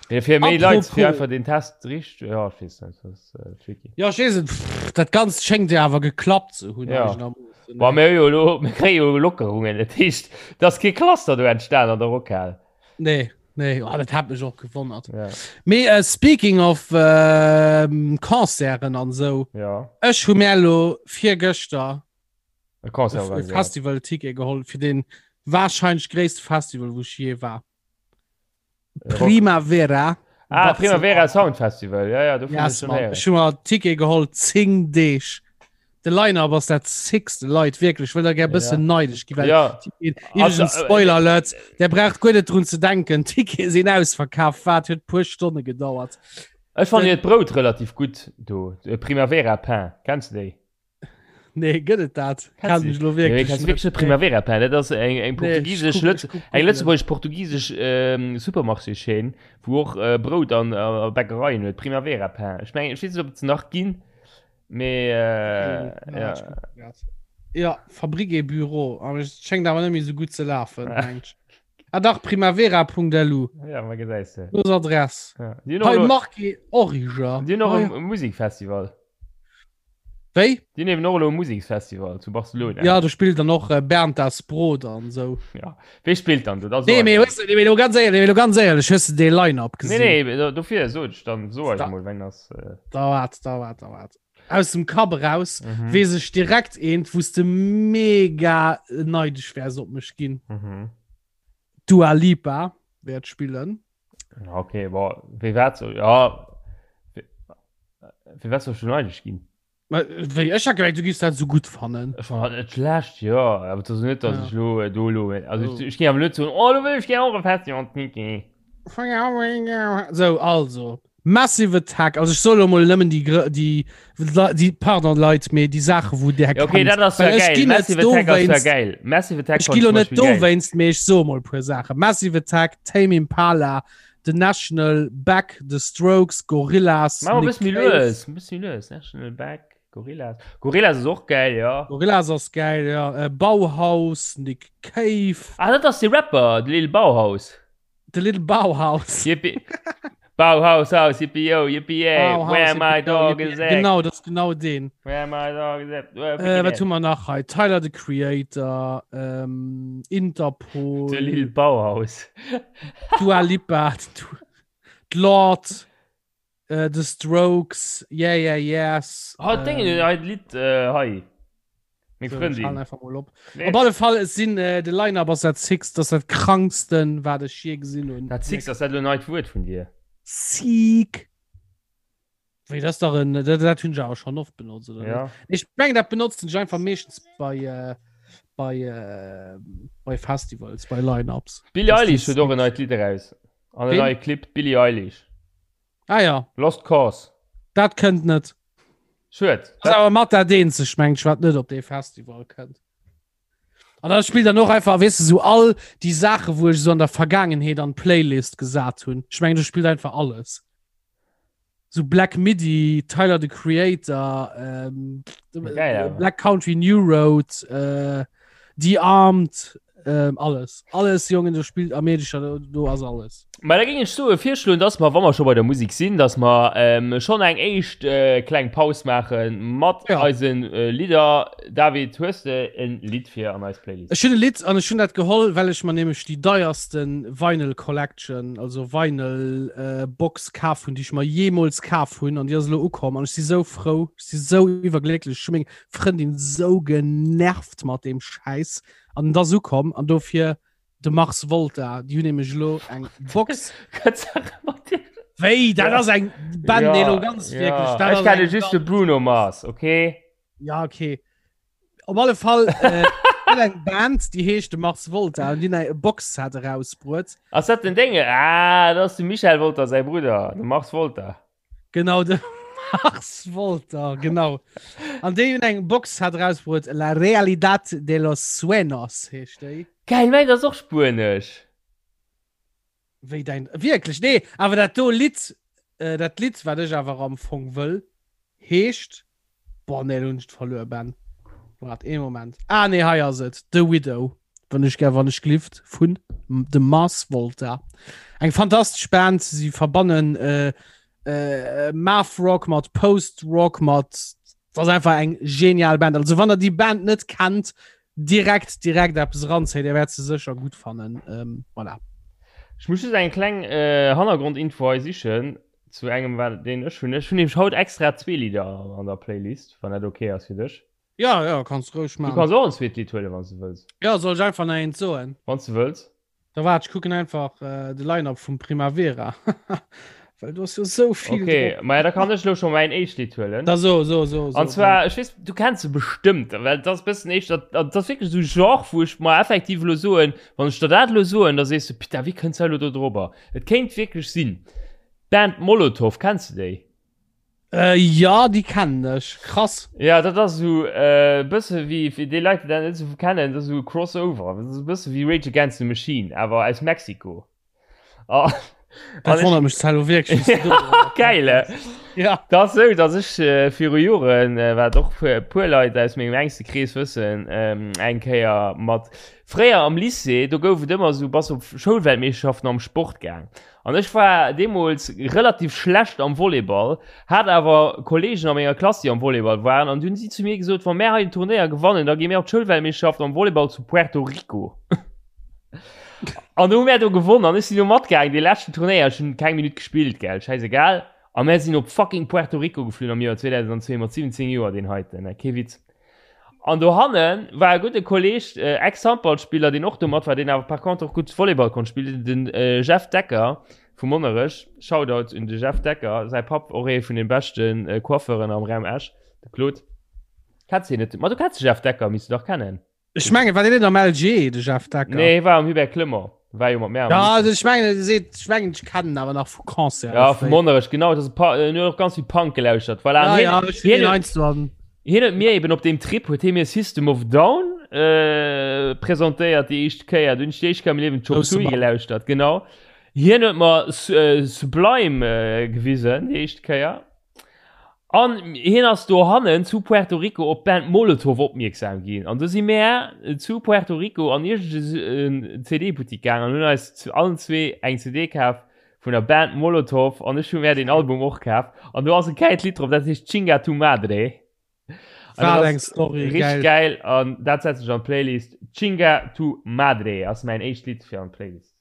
Mee fir méi Leit, fir Apropos. einfach den Test richt, ja, ech weess net, dat ass äh, tricky. Ja, ech weess et, pff, dat Ganzt schéngt jo awer geklappt ze hunn, Ja. eigenermoossen, Bon, ne? mir hu jo elo, mir kréie jo Lockerungen, dat heescht, et ass kee Cluster do entstan an der Rockhal. Nee. Nee, oh, dat hat mech och gewonnert. Ja. Mee äh, speaking of äh, Concerten an sou. Ja. Ech hu mir elo virgëschter E Concert e organiséiert. Festival-Ticket geholl fir den wahrscheinlech gréisste Festival, wou ech je war. Äh, Rock. Primavera. Ah, Barcelona. Primavera Sound Festival. Ja, ja, dovun Yes, ech schon Mann. héieren. Ech hu mer Ticket geholl 10 Deeg. De Line-Up ass dat sickste Leit wierklech wëll der gär bëssen Ja. neidesch gi well Ja. Iwwregens Also, äh, Spoiler Alert, der braucht guer net drun ze denken, Tickete sinn ausverkaf, wat huet puer Stonne gedauert. Ech fannen Den- hiert Brout relativ gutt do. De Primavera Pain. Kenns du déi? Nee, gëtt et dat? Kennst Kenn du ech lo Nee, wierklech kennst du net. wierklech net Primavera Pain? Dat ass eng, eng Nee, ech portugisesch, kuck- Lëtz ech kuck eng googlen. lëtzebuergesch-portugisesch ähm, Supermarché-Chaîne, wou och äh, Brout an äh, Bäckereien huet. Primavera Pain. Ech mengen, ech weess net, ob et se nach ginn. Mee äh, Ja, ja. ja Fabrik et Büro, awer et schéngt awer net méi sou gutt ze lafen, mengt ech. Ah dach, primavera.lu, Ja, ma gesäis de. do ass Adress. Ja. Déi hunn och Hei elo- Marque Origer. déi hunn och Ah, e ja. Musikfestival. Wéi? Déi hunn eben och elo e Museksfestival zu Barcelona. Ja, do spillt dann och äh, Bernd das Brot an sou. Ja. Wee spillt dann do? Dat Nee, so mee hues du, nee, mee lo ganz éierlech, mee lo ganz éierlech, hues du dee Line-Up Nee, gesinn? nee, do- dofir sot ech dann so Da- mol, wenn das. Äh, Da wart, da wart, da wart. Aus dem Kapp eraus mhm. weess ech direkt eent, wou s de mega neidesch wäers op mech ginn. Mhm. Dua Lipa wäert spillen. Ja, Okay, boah, wéi wat so? Ja. Fir wat soll ech do neidesch ginn? Ma, Wéi ech hat gemengt, du giffs dat sou gutt fannen. Ech fand dat net schlecht, jo, awer et ass net, dass Ja. ech lo äh, do lo, also Oh. ech, ech géing awer net soen, oh, lo wëll ech gär och e Festival, Niki. So, also Massive Attack, also ech soe lo mol nëmmen déi, grö- déi, déi, pardon Leit, mee déi Saache wou där Ja, okay, kennt. dat ass ja Well ech geil. ginn net Massive Attack ass ja dowéinst, geil. Massive Attack ech fand gi ich lo zum net Beispiel geil. dowéinst, mee ech soe mol puer Saache. Massive Attack, Tame Impala, The National, Beck, The Strokes, Gorillaz, Mach mal Nick bëssen méi Cave. lues, e bëssen méi lues. National, Beck, Gorillaz. Gorillaz ass och geil, ja. Gorillaz ass geil, ja. Äh, Bauhaus, Nick Cave. Ah, dat ass de Rapper, de Lil Bauhaus. The Little Bauhaus. Yippie. Bauhaus, Haus, yippie yo, yippie yay. Bauhaus, Where my yippie yo, dog yippie is yay. at. Genau, dat ass genau deen. Where my dog is at. Äh, wat hu mer nach hei? Tyler, the Creator, ähm, Interpol. De Lil Bauhaus. Dua Lipa, d'Lord, äh, The Strokes, Yeah Yeah Yeahs. Oh, ähm, Ding, hei d'Lidd äh, hei. Meng so, Frëndin. einfach mal op. Nee. Op alle Fall, es sinn äh, de Line-Up ass dat sickst, dat ass dat kranksten, wat ech je gesinn hunn. Dat sickst ass dat lo neit Wuert vun dir. Sick. Wéi das dach en dat, dat hunn ech awer schon oft benotzt oder Ja. net? Ich meng dat benotzen ech einfach meeschtens bei äh, bei äh, bei Festivals, bei Line-Ups. Billie Dass Eilish die huet och en neit Lidd eraus. An en Ween? neie Clip, Billie Eilish. Ah ja, Lost Cause. dat kënnt net. Schued. Dat ass awer mat dat eenzegt, meng ech, wat net op dee Festival kënnt. An da spillt dann och einfach, weess de, sou all déi Saache, wou ech sou an der Vergaangenheet an d'Playlist gesat hunn. Ech mengen, do spillt einfach alles. So Black Midi, Tyler the Creator, ähm, Geil, awer. Black Country New Road, äh, The Armed, ähm, alles. Alles, Jongen, do spillt Amerika, do, do ass alles. Ma da géing ech soe virschloen, dass mer, wa mer scho bei der Musek sinn, dass mer ähm, schonn eng éischt äh, kleng Paus maache mat Ja. eisen äh, Lidder. David, hues de en Lidd fir an eis Playlist? Ech hunn e Lidd an ech hunn dat geholl, well ech mer nämlech déi deierste Vinyl Collection, also Vinyl äh, Box kaf hunn, déi ech mer jeemools kaf hunn an déi ass elo ukomm an ech si sou frou, ech si sou iwwerglécklech, ech hu meng Frëndin sou genervt mat deem Schäiss an et ass ukomm an dofir de Mars Volta, déi hunn nämlech elo eng Box. Wéi, dat ass eng Band, nee, elo ganz wierklech, dat Ech ass kenne eng just de Band. Bruno Mars, okay? Ja, okay. Op alle Fall äh, gëtt eng Band, déi heescht de Mars Volta an déi hunn eng Box-Set erausbruet. Ass dat den Dénge? Ah, dat ass de Michel Wolter säi Brudder, de Mars Volta. Genau, de Mars Volta, genau. An déi hunn eng Box-Set erausbruet, La Realidad de los Sueños heescht déi. Geil, mäin ass och spuenesch. Wéi däin, wierklech? Nee, awer dat do Lidd, äh, dat Lidd, wat ech awer am Fong wëll, heescht, boah, nee, lo hunn ech et verluer, Ben. Waart ee Moment. Ah, nee, hei ass et, The Widow, wann ech gär, wann ech glift, vun The Mars Volta. Eng fantastesch Band, si verbannen äh, äh, Math Rock mat Post Rock mat, dat ass einfach eng genial Band. Also wann der déi Band net kennt, direkt direkt eppes eranzéien, Dir wäert se sécher gutt fannen. Ähm, voilà. Ech muss just eng kleng äh, Hannergrondinfo hei sichen zu engem wat deen ech hunn. Ech hunn nämlech haut extra zwee Lidder an der Playlist, wann dat okay ass fir dech. Ja, ja, kanns roueg Du kanns och en zweet Lidd huelen, wann s du wëlls. Ja, soll ech einfach nach eent soen? Wann s du wëlls. Da waart, ech kucken einfach äh, de Line-Up vum Primavera. Well du hast jo sou vill. Okay, drop. Ma ja, da kann ech lo schon mäin éischt Lidd huelen. Da so, so, so, so. An zwar, ech weess, du kenns se bestëmmt, well dat ass bëssen éischter, dat ass wierklech esou Genre, wou ech mer effektiv elo soen, wann ech der dat elo soen, da sees du, Putain, wéi kënns du elo do drobber? Et kéint wierklech sinn. D'Band Molotov, kenns du déi? Äh, ja, déi kennen ech. Krass. Ja, dat ass esou e bësse wéi, fir déi Leit, déi dat net esou kennen, dat ass esou e Crossover. Dat ass e bësse wéi Rage Against the Machine, awer aus Mexiko. Oh. Dat wonnert mech zwar elo wierklech, wéi s du do drop komm Geil, eh? Ja. Dat ass esou, datt ech viru Joren, wat och e puer Leit aus mengem enkste Krees wëssen, eng Kéier mat, fréier am Lycée, do gouf et ëmmer esou, bass op Schoulweltmeeschterschaften am Sport gaang. An ech war deemools relativ schlecht am Volleyball, hat awer Kollegen a menger Klass, déi am Volleyball waren, an du hunn si zu mir gesot, wa mär hei den Turnéier gewannen, da gi mär op d'Schoulweltmeeschterschaft am Volleyball zu Puerto Rico. An du hu mär do gewonnen an ech sinn do matgaangen, dee leschten Turnéier, ech hunn keng Minutt gespillt, gell, schäisegal. A mär sinn op fucking Puerto Rico geflunn am Joer 2002 mat 17 Joer, deen heiten, kee Witz. An dohanne war e gudde Kolleg, Ex-Handballspiller, deen och do mat war, deen awer par contre och gutt Volleyball konnt spillen, den Jeff Decker vu Monnerech. Shoutout un de Jeff Decker, säi Papp och ee vun de beschte Coiffeuren am Raum Esch, de Claude. Kenns hien net? Ma du kenns de Jeff Decker, misst du dach kennen. Ech mengen, war deen net am LG, de Jeff Decker? Nee, hie war am Hubert Clement. War jo mat mär am Ja, also ech mengen, e seet, ech mengen, ech kennen en awer nach vu Concert. Ja, vu Monnerech, genau. Dat ass e Pa-, en huet och ganz vill Punk gelauschtert. Voilà, Ja, an hien, ja, ech hunn hien deen huet, heiansdo an. hien huet mir eben op deem Trip, huet hie mir System of a Down äh, presentéiert déi éischt Kéier. Du hunn ech déi éischt Kéier am Liewen Chop Grousse Suey Mann. gelauschtert, genau. Hien huet mer Su-, äh, Sublime äh, gewisen déi éischt Kéier. An hien ass dohannen zu Puerto Rico op d'Band Molotov opmierksam ginn. An du si mär zu Puerto Rico an iergend en CD-Buttik gaang an hunn eis zu allen zwee eng CD kaf vun der Band Molotov. An ech hu mär deen Album och kaf. An do ass e gäilt Lidd drop, dat heescht Chinga Tu Madre. An dat Wat eng ass Story, richteg geil. gäil. An dat setzen ech an d'Playlist. Chinga Tu Madre ass mäin éischt Lidd fir an d'Playlist.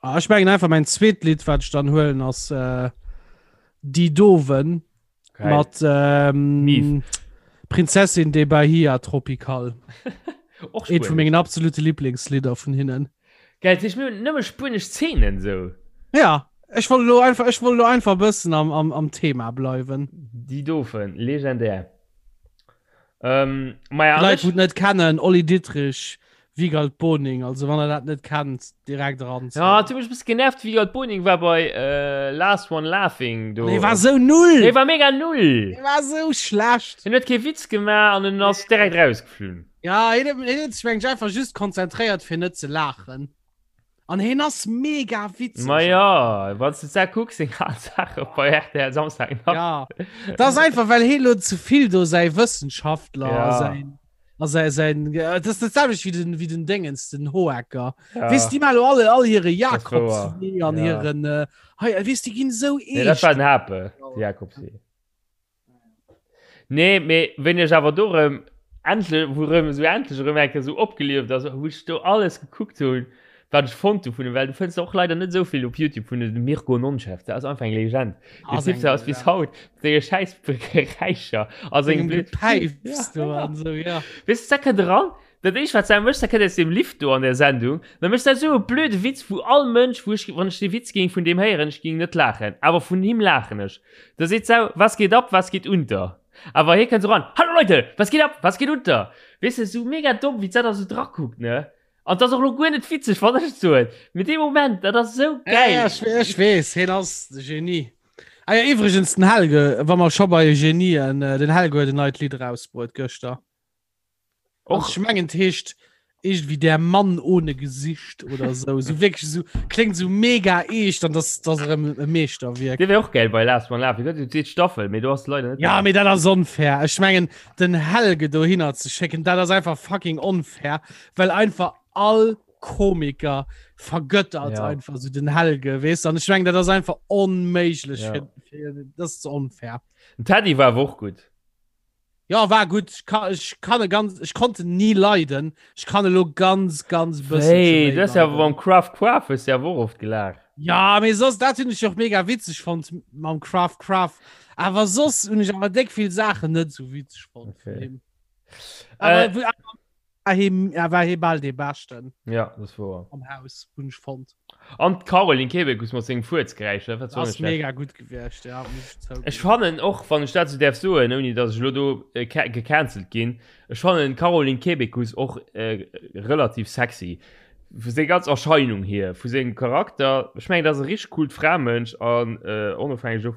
Ah, ech mengen einfach mein zweet Lied wat ich dann huelen ass äh, Die Doven Geil. mat ähm, Mief. Prinzessin de Bahia Tropical. Och Eent vu spuenesch. mengen absolute Lieblingslieder vun hinnen. Geil, dat heescht, mir hunn nëmme spuenesch Zeenen sou. Ja, ech wollt lo einfach ech wollt lo einfach bëssen am, am, am Thema bleiwen. Die Doven, legendär. Ähm, maja, Leit wou et net kennen, Olli Dittrich, Wigald Boning, also wann der dat net kennt, direkt eran. Ja, du mech bis genervt, Wigald Boning war bei äh, Last One Laughing do. Dee war sou null! Dee war mega null! Dee war sou schlecht! Hien huet kee Witz gemaach an en ass direkt rausgeflunn. Ja, hien huet sech mengen ech einfach just konzentréiert fir net ze laachen. An hien ass mega witzeg. Ma ja, wann du da kucks, seng al Sache bei RTL Samstag Nacht. Ja, das ist einfach, well hie lo zu vill do säi Wëssenschaftler Ja. a säin a säi säin äh, das ist das selwecht wie den wie den Dingens den Hohecker. Ja. Wees die mal alle all hire Das war Jakobswee an Ja. hiren äh, hei wees die ginn sou Nee, dat war eescht. den Hape, de Jakobswee. Nee, mee wéini ech awer do rëm endlech, wou rëm esou endlech erëm eng Kéier esou opgelieft ass, wou ech do alles gekuckt hunn, wat ech fonnt hu vun him, well du fënns och leider net esou vill op Youtube vun dem Mirko Nonchev, dat ass einfach eng Legend. Deen Ass Typ eng dat ass bis Legend. haut mat senge schäiss Geräischer a sengem Sengem blöd Gepäifs do an esou, ja. Weess de, da kënnt eran, dat éischt wat s de méchs, da kënnt aus deem Lift do an der Sendung, da méchs de esou e blöde Witz, wou all Mënsch, wou ech, wann ech dee Witz géing vun deem héieren, ech géing net laachen, awer vun him laachen ech. Da seet s'au, Was geht ab, was geht unter? Awer hie kënnt sou ran, Hallo Leute, was geht ab, was geht unter? Weess de, sou mega domm, wéi d'Sat da sou drakuckt, ne? An 't ass och lo guer net witzeg, wann ech et soen, mee dee Moment, dat ass sou Ja, gäil. ja, ech, ech weess, hien ass de Genie. Ah ja, iwwregens, den Helge, wa mer scho bei Genien, den Helge huet en neit Lidd erausbruet gëschter. Och ich mengen heescht irgendwie der Mann ohne Gesicht oder so so wirklich so klingt so mega echt dann das das e Meeschterwierk Dee wär och geil bei Last One Laughing gëtt déi zweet Staffel mee do ass leider net Ja mee dat ass onfair ech mengen den Helge dohinner ze schécken dat ass einfach fucking onfair well einfach all Komiker vergöttert ja. einfach so den Helge weess an ech mengen dat ass einfach onméiglech ja. fir, fir, dat ass onfair Den Teddy war awer och gutt. Ja war gutt. Ech ka, ech kann e ganz, ech konnt en ni leiden. Ech kann elo ganz, ganz bësselche Hey, méi du hast ja leiden. beim Craft Craft hues du ja och oft gelaacht. Ja, mee soss, dat hunn ech och mega witzeg fonnt mam Craft Craft. Awer soss hunn ech awer déck vill Saachen net sou witzeg fonnt vun Okay. him. Awer Äh, wou- awer war hie, er war hie bal dee Beschten ja, das war. am Haus, hunn ech fonnt. An d'Caroline Kebekus mat sengem Fuerzgeräisch, dat war zwar Ass net schlecht. mega gutt gewiescht, ja, muss ech Ech zouginn. fannen och, wann ech dat sou däerf soen, ouni datt ech elo do äh, ca- gecancelt ginn, ech fannen d'Caroline Kebekus och äh, relativ sexy. Vu seng ganz Erscheinung hier, vu sengem Charakter. Ech mengen, dat ass e richteg coolt Framënsch an äh, onofhängeg of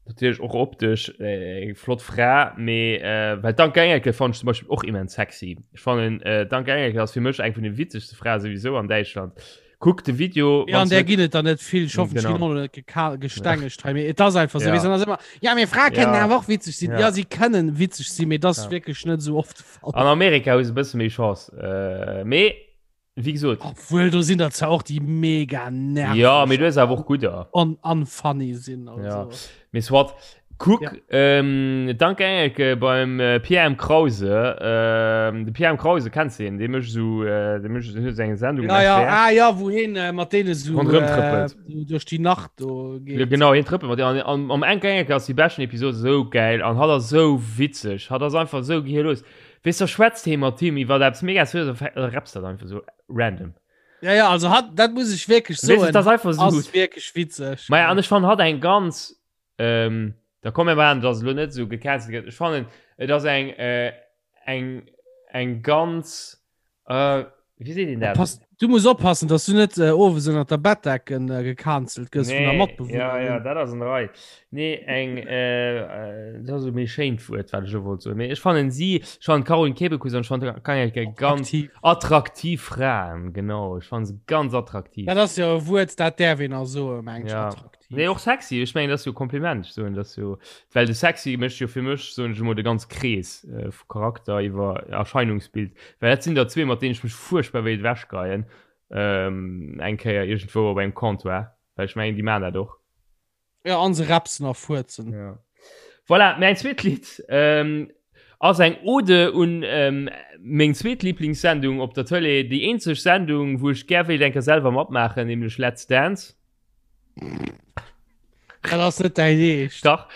Natierlech och optesch eng flott Fra, mee well d'Anke Engelke fannen ech zum Beispill och immens sexy. Ech fannen d'Anke Engelke ass fir mech eng vun de witzegste Frae souwisou an Däitschland. Kuck de Video. Ja, an där ginn et der net vill. Ech hoffen, ech ginn och net gestengegt hei, mee et ass einfach esou. Weess, dann ass ëmmer, ja, mee Frae kënnen awer och witzeg sinn. Ja, si kënnen witzeg sinn, mee et ass wierklech net esou oft de Fall. An Amerika hu se e bësse méi Chance, mee Wéi gesot. Obwuel, do sinn der zwar och, déi mega nerveg. Ja, mee du hues awer och gudder. An unfunny sinn. Also. Ja. Mee soit. Kuck, ja. ähm, danke Engelke beim äh, Pierre M. Krause. Ähm, de Pierre M. Krause kennst du den? Dee mécht so, äh, dee mécht so eng Sendung. Ja, ja, ah, ja, wou hien äh, mat deene so Ronderëm trëppelt. Äh, duerch déi Nacht do geet. Ja, genau, hien trëppelt mat deenen. An, am Enke Engelke ass déi beschten Episode sou geil an hat ass sou witzeg. Hat ass einfach sou gehirlos. Weess da schwätzt hee mat him iwwer eppes mega seriös a rappst dat einfach sou random. Ja, ja, also hat, dat muss ech wierklech soen. Weess, dat ass einfach sou ass wierklech witzeg. Maja, an ech fannen hatt eng ganz, ähm, da komm mir maachen, dass elo net sou gecancelt gëtt. Ech fannen, et ass eng, äh, eng, eng ganz, äh, Wéi seet een dat? Pass, du muss oppassen, dass du net äh, owes ënner der Bettdecken äh, gecancelt gëss vun der Nee, Matbewunnerin. ja, ja, dat ass an der Rei. Nee, eng, äh, äh, dat ass e méi schéint Wuert, wat ech elo wollt soen. Mee ech fannen si, ech fannen d'Caroline Kebekus an ech fannen d'Angelika ganz Attraktiv. attraktiv Fraen, genau. Ech fannen se ganz attraktiv. Dat ass jo e Wuert, dat däerf een a soen, meng ech, Ja. attraktiv. Nee, och sexy. Ech mengen, dat ass jo e Kompliment. Ech soen, dat ass jo, well de sexy mécht jo fir mech, soen ech emol, de ganz Krees äh, vu Charakter iwwer Erscheinungsbild. Well dat sinn der zwee, mat deenen ech mech fuerchtbar wéilt ewechgeien, ähm, eng Kéier iergendwou op engem Comptoir. Well ech mengen, déi maachen dat och. Ja, an se repsen a fuerzen. Ja. Voilà, mäin zweet Lidd ähm, ass eng Ode un ähm, meng zweet Lieblingssendung op der Tëlee, déi eenzeg Sendung, wou ech gär wéilt eng Kéier selwer matmaachen, nämlech Let's Dance. Dat ass net däin Eescht. Dach.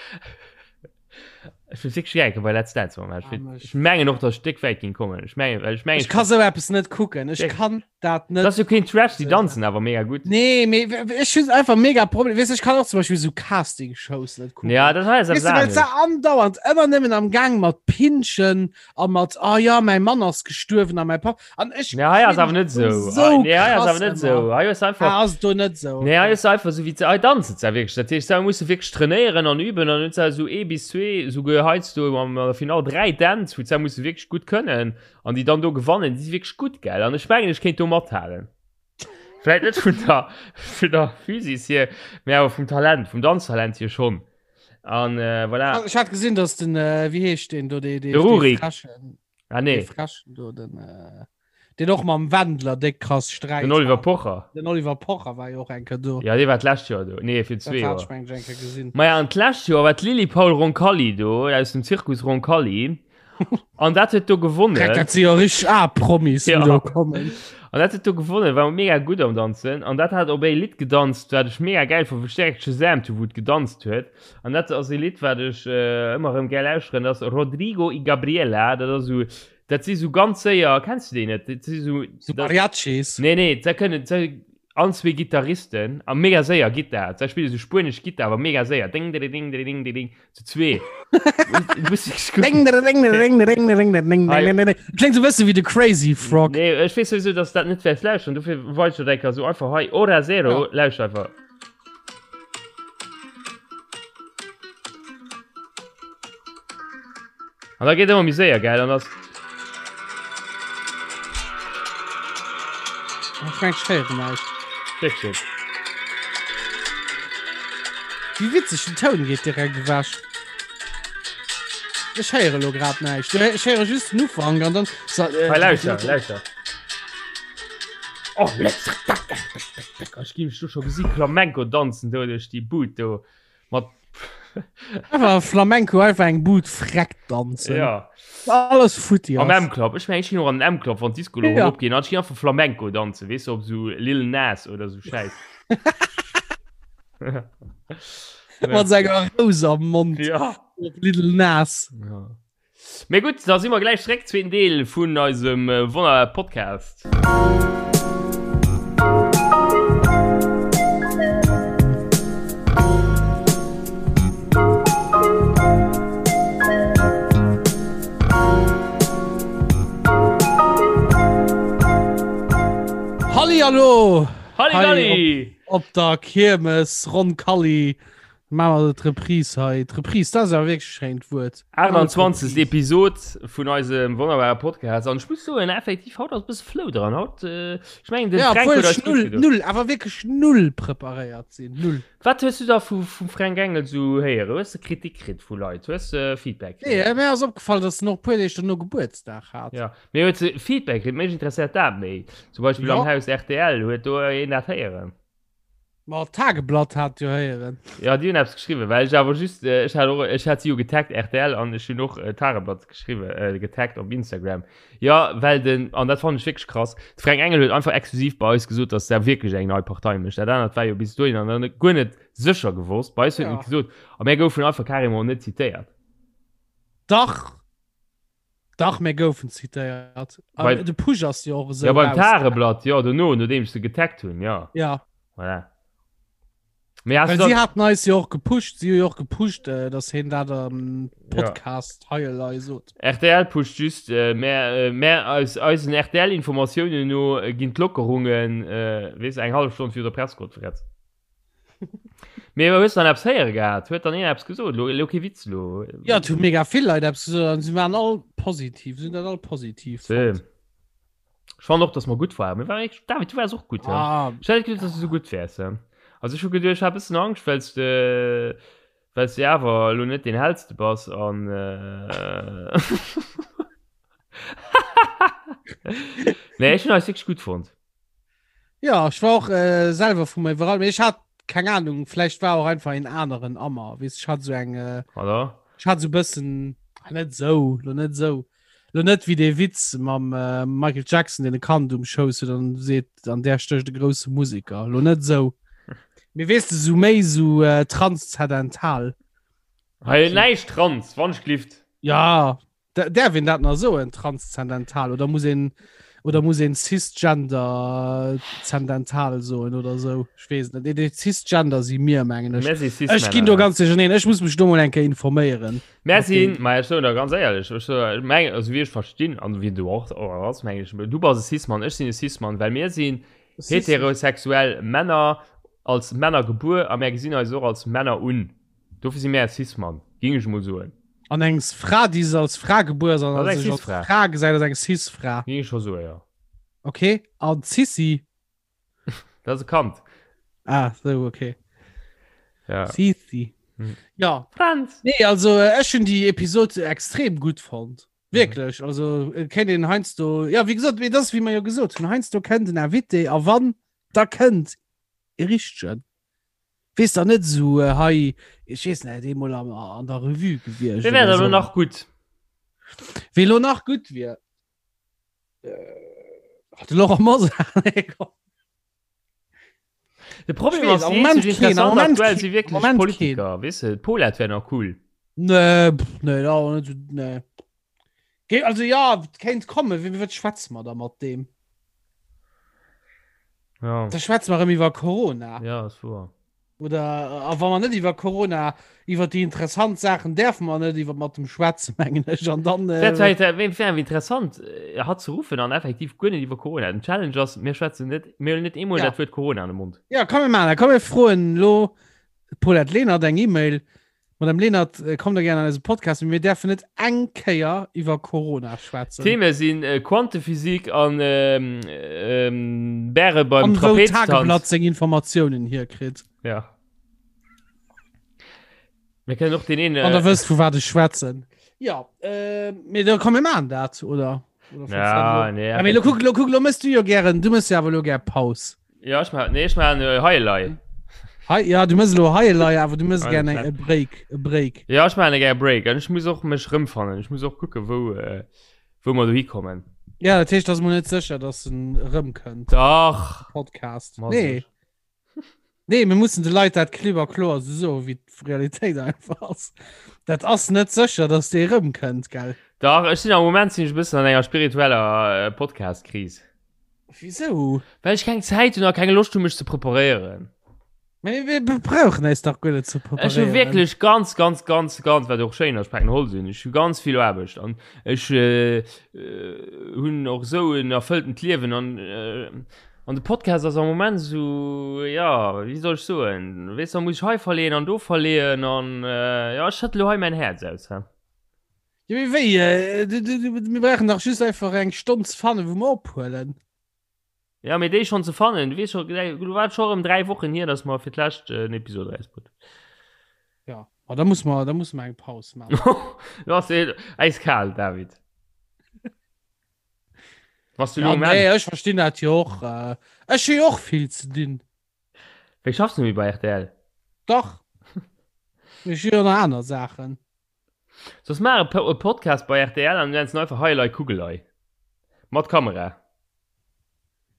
Ech wëll wierklech gär bei Let's Dance matmaachen. Ech wëll- Ech mengen och, dass ech déck wäit ging kommen. Ech mengen, well ech mengen, Ech ka sou eppes net kucken. Ech kann dat net. Dat ass jo keen Trash, déi danzen awer mega gutt. Nee, mee ech hunn einfach mega Problem. Weess, ech kann och zum Beispill sou Casting-Shows net kucken. Ja, dat hei ass Weess eppes du, well se anescht. andauernd ëmmer nëmmen am Gang mat Pinschen a mat, ah ja, mäi Mann ass gestuerwen a mäi Papp. An ech Nee, hei ass awer net sou. So Nee, hei ass krass awer net ëmmer. sou. Hei ass einfach. Ah, ass do net sou. Nee, hei ass einfach sou wéi ze, hei danzen se wierklech. Dat heescht, se musse wierklech trainéieren an üben an hunn se sou ee bis zwee, souguer heiansdo am an der Finall 3 Dänz, wou se musse wierklech gutt kënnen an déi dann do gewannen, déi si wierklech gutt, gell? An ech mengen, ech kéint do mathalen. Vläit net vun der, vun der Physis hier, mee awer vum Talent, vum Danztalent hier schonn. An äh, voilà. Ech hat gesinn, dass den, äh, wéi heescht deen do, dee, dee, De Rurik. dee Frechen. Ah, nee. Dee Frechen do, den, äh, den och mam Wendler déck krass Sträit Den Oliver hat. Pocher. Den Oliver Pocher war jo och eng Kéier do. Ja, dee war d'lescht Joer do. Nee, fir Dat zwee hat Joer. ech mengen ech eng Kéier gesinn. Maja, an d'lescht Joer war d'Lili Paul Roncalli do, aus dem Zirkus Roncalli. An dat huet do gewonnen. Dreck, dat si jo richteg A-Promis, Ja. déi do kommen. An dat huet do gewonnen, war mega gutt am Danzen. An dat hat op ee Lidd gedanzt, wat ech mega gäil fonnt, wou ech direkt Shazamt hu wou et gedanzt huet. An dat ass ee Lidd, wat ech äh, ëmmer erëm gär lauschteren, dat ass Rodrigo y Gabriela. Dat ass esou, dat si sou ganz séier, kenns du déi net? Dat si sou, So dat, Mariachis. nee, nee, da kënnen, da, an zwee Gitarristen a mega séier Gittar. Da spille sou spuenesch Gittar, awer mega séier. Ding, ding, ding, ding, ding, ding, zu zwee. Du musst wierklech Ding, kucken. ding, ding, ding, ding, ding, ding, ding, Hei. ding, ding, ding. Kléngt sou bësse wéi de Crazy Frog. Nee, ech weess sowieso, dass du dat net wäerts lauschteren. Dofir wollt ech dat eng Kéier sou einfach hei. Ora Zero, Ja. lauschter einfach. An da geet ëmmer méi séier, gell? An ass. Ech mengen, ech héieren näischt. Wierklech? Wéi witzeg, den Toun geet direkt ewech. Ech héiere lo grad näischt. Ech héiere just den Ufank an dann. Hei, lauschter, lauschter. Oh, Ech gi mech do scho gesi Flamenco danzen do duerch déi Bud do mat. Einfach Flamenco einfach eng Bud freck danzen. Ja. Alles futti Am M-Club. Ech meng, ech ginn och an den M-Club, wann d'Disco lo ja. opginn. An ech ginn einfach Flamenco danzen, weess du, op sou Lil Nas oder sou Schäiss. Mat senger Rous am Mond. Ja. Op Lil Nas. Ja. Mee gutt, da si mer gläich zréck, zweeten Deel vun eisem wonnerbare Podcast. Hallihallo! Halligalli! Op, op der Kiermes Roncalli Maache mer d'Reprise hei. D'Reprise, dat ass awer wierklech e schéint Wuert. 28. Episod vun eisem wonnerbare Podcast. An ech muss soen, effektiv, haut ass e bësse Flow dran. Haut, äh, ech mengen, den Ja, Fränk obwuel huet eis ech gutt null, gedoen. null, awer wierklech null preparéiert sinn. Null. Wat hues du da vu, vum Fränk Engel sou héieren? Hues de Kritik kritt vu Leit? Hues de Feedback Nee, kritt? äh, mir ass opgefall, dass en och e puer Deeg dono Gebuertsdag hat. Ja, mee hues de Feedback kritt? Mech interesséiert dat méi. Zum Beispill Ja. am Haus rtl, huet do een dat héieren? Ma d'Tageblatt hat jo héieren. Ja, déi hunn eppes geschriwwen, well ech awer just, äh, ech hat och, ech hat si jo getaggt, rtl, an ech hunn och äh, Tageblatt geschriwwen, äh, getaggt op Instagram. Ja, well den, an dat fand ech wierklech krass, de Fränk Engel huet einfach exklusiv bei eis gesot, dass der wierklech eng nei Partei mécht. Dat anert war jo bis dohinner nach net, guer net sécher gewosst. Bei eis huet en Ja. et gesot, a mär goufen einfach carrément net zitéiert. Dach, Dach, mir goufen zitéiert. Bei- De Push ass jo och esou. Ja, beim rausgaangen. Tageblatt, jo, dono, nodeem ech se getaggt hunn, ja. Ja, Voilà. Mee hast well du si dann, haten eis jo och gepusht, si hu jo och gepusht, äh, dass hien dat am Podcast hei elei sot. RTL pusht just, äh, mä, äh, mä aus eisen RTL-Informatiounen no äh, ginn d'Lockerungen, äh, weess, eng hallef Stonn virun der Presskonferenz. Mee hues dann eppes héiere gehat? Huet dann een eppes gesot? Lo, lo kee Witz lo. Ja, et hu mega vill Leit eppes gesot an si waren all positiv, si hunn dat all positiv Same. fonnt. Ech fannen och, dass mer gutt waren. Mir waren echt, David, du waars och gutt, hä? Ah, Ech hätt net geduecht, dass du sou gutt wäers, hä? Also ech hu geduecht, ech hat e bëssen Angscht, well s de, well s de awer elo net deen hellste bass an äh, Nee, ech hunn eis wierklech gutt fonnt. Ja, ech war och äh, selwer vu mir iwwerall. Mee ech hat keng Ahnung, vläicht war och einfach een aneren Ammer. Weess, ech hat so eng äh, Oder? ech hat so bëssen ah, net sou, lo net sou. Lo net wéi dee Witz mam äh, Michael Jackson, deen e Kand um Schouss huet an seet, an där stécht e grousse Musiker. Lo net sou. Mee weess de, sou méi sou äh, transzendental. Hei näischt trans, wann ech glift. Ja, Däerf een dat nach soen, transzendental, oder muss een, oder muss een cisgender zendental soen oder sou? Ech weess et net. Nee, déi Cisgender si mir, mengen ech. Mir si Ech ginn do Cis-Männer. ganz duercherneen. Ech muss mech do mol eng Kéier informéieren. Mir Mat sinn, deem. ma ech soen der ganz éierlech, ech soen, ech mengen, also wéi ech verstinn an wéi du och och ass, mengen ech, du bass e Cis-Mann, ech sinn e Cis-Mann, well mir sinn Cis. heterosexuell Männer, als Männer gebuer a mär gesinn eis och als Männer un. Dofir si mär Cis-Mann, géing ech emol soen. An eng Fra, déi se als Fra gebuer ass an Dat ass eng sech als Cis-Fra. Fra gesäit, ass eng Cis-Fra. Géing ech scho soen, jo. Okay, an d'Sissi? Dat ass e Kand. Ah, sou, okay. Ja. Sissi. Hm. Ja. Franz! Nee, also äh, ech hunn déi Episod extrem gutt fonnt. Wierklech, also äh, kéint een heiansdo, ja, wéi gesot, mee dat ass wéi mer jo gesot hunn, heiansdo kënnt en Invité a wann, da kënnt e richtegen. Wees da net sou äh, hei ech weess net eemol an, an der Revue gewiescht. Wee wär da lo nach gutt? Wee lo nach gutt wier? Äh, de Laurent Mosar. Nee, komm. De Problem Ich weess, ass, am déi Moment eenzeg keen, am interessant Moment aktuell keen, si am wierklech Moment Politiker, weess de, d'Paulette wär nach cool. Nee, pff, nee, da net so, nee. Ge also ja, kéint kommen, wéi wat schwätze mer da mat deem? Ja. Da schwätze mer erëm iwwer Corona. Ja, ass wuer. Oder a wa mer net iwwer Corona, iwwer déi interessant Saachen däerfe mer net iwwer mat dem schwätzen, mengen ech. An dann Wär äh, zwar inter wär wär interessant, äh, hatt ze ruffen an effektiv guer net iwwer Corona. Den Challenge ass, mir schwätzen net, mir huelen net eemol Ja. dat Wuert Corona an de Mond. Ja, komm mir maachen dat. Komm mir froen elo d'Paulette Lenert eng E-Mail. Madame Lenert, äh, kommt da gerne an eise Podcast, mee mir däerfen net eng Kéier iwwer Corona schwätzen. Theme sinn äh, Quantephysik an ähm, ähm, Bäre beim An wou Trapeztanz. Tageblatt seng Informatiounen hierkritt. Ja. Mir kënnen och den een. An der Äh, wësst, vu wat ech schwätzen. Ja, äh, mee da komm mir maachen dat, oder? Oder findest du dat ja, lo? nee, Ja, mee lo kuck, lo kuck, lo mëss du jo gären, du mëss jo awer lo gär Paus. Ja, ech ma, nee, ech maachen äh, Heilei. Hei, ja, du mëss elo hei elei, awer du mëss gär e Break, e Break. Ja, ech maachen gär e Break an ech muss och mech rëmfannen. Ech muss och kucken, wou, äh, wou mer dohi kommen. Ja, dat heescht, ass mol net sécher, dass en erëmkënnt. Dach! Podcast. Ma nee. Nee, mir mussen de Leit dat klipp a kloer esou soen, wéi d'Realitéit einfach ass. Dat ass net sécher, dass dee erëmkënnt, gell? Dach, ech sinn am Moment sinn ech e bëssen an enger spiritueller äh, Podcast-Kris. Wisou? Well ech keng Zäit hunn a keng Loscht hunn, mech ze preparéieren. Mee mir brauchen eis dach guer net ze preparéieren. Ech hu wierklech ganz, ganz, ganz, ganz, wat och schéin ass, ech paken Holz un, ech hu ganz vill Aarbecht an ech äh, hunn och esou en erfëlltent Liewen an äh, an de Podcast ass am Moment esou, ja, wéi soll ech soen, weess da muss ech hei verleeën an do verleeën an äh, ja, ech schëtte lo hei mäin Häerz aus, hä. Ja, mee wéi? Äh, du, du, du, mir brauchen dach just einfach eng Stonn ze fannen, wou mer ophuelen. Ja, mee déi schonn ze fannen, du weess scho, du war scho erëm 3 Wochen hier, dass mer fir d'lescht en Episod erausbrutt. Ja, ma da muss mer, da muss mer eng Paus maachen. Du ass äiskal, David. Was du Ja, lo nee, Enn? ech verstinn dat jo och. Äh, ech hu jo och vill ze dinn. Wéi schaffs du méi bei rtl? Dach. Ech hu jo nach aner Saachen. Soss maach e Podcast bei rtl an nenns en einfach Hei elei Kugelei. Mat Kamera.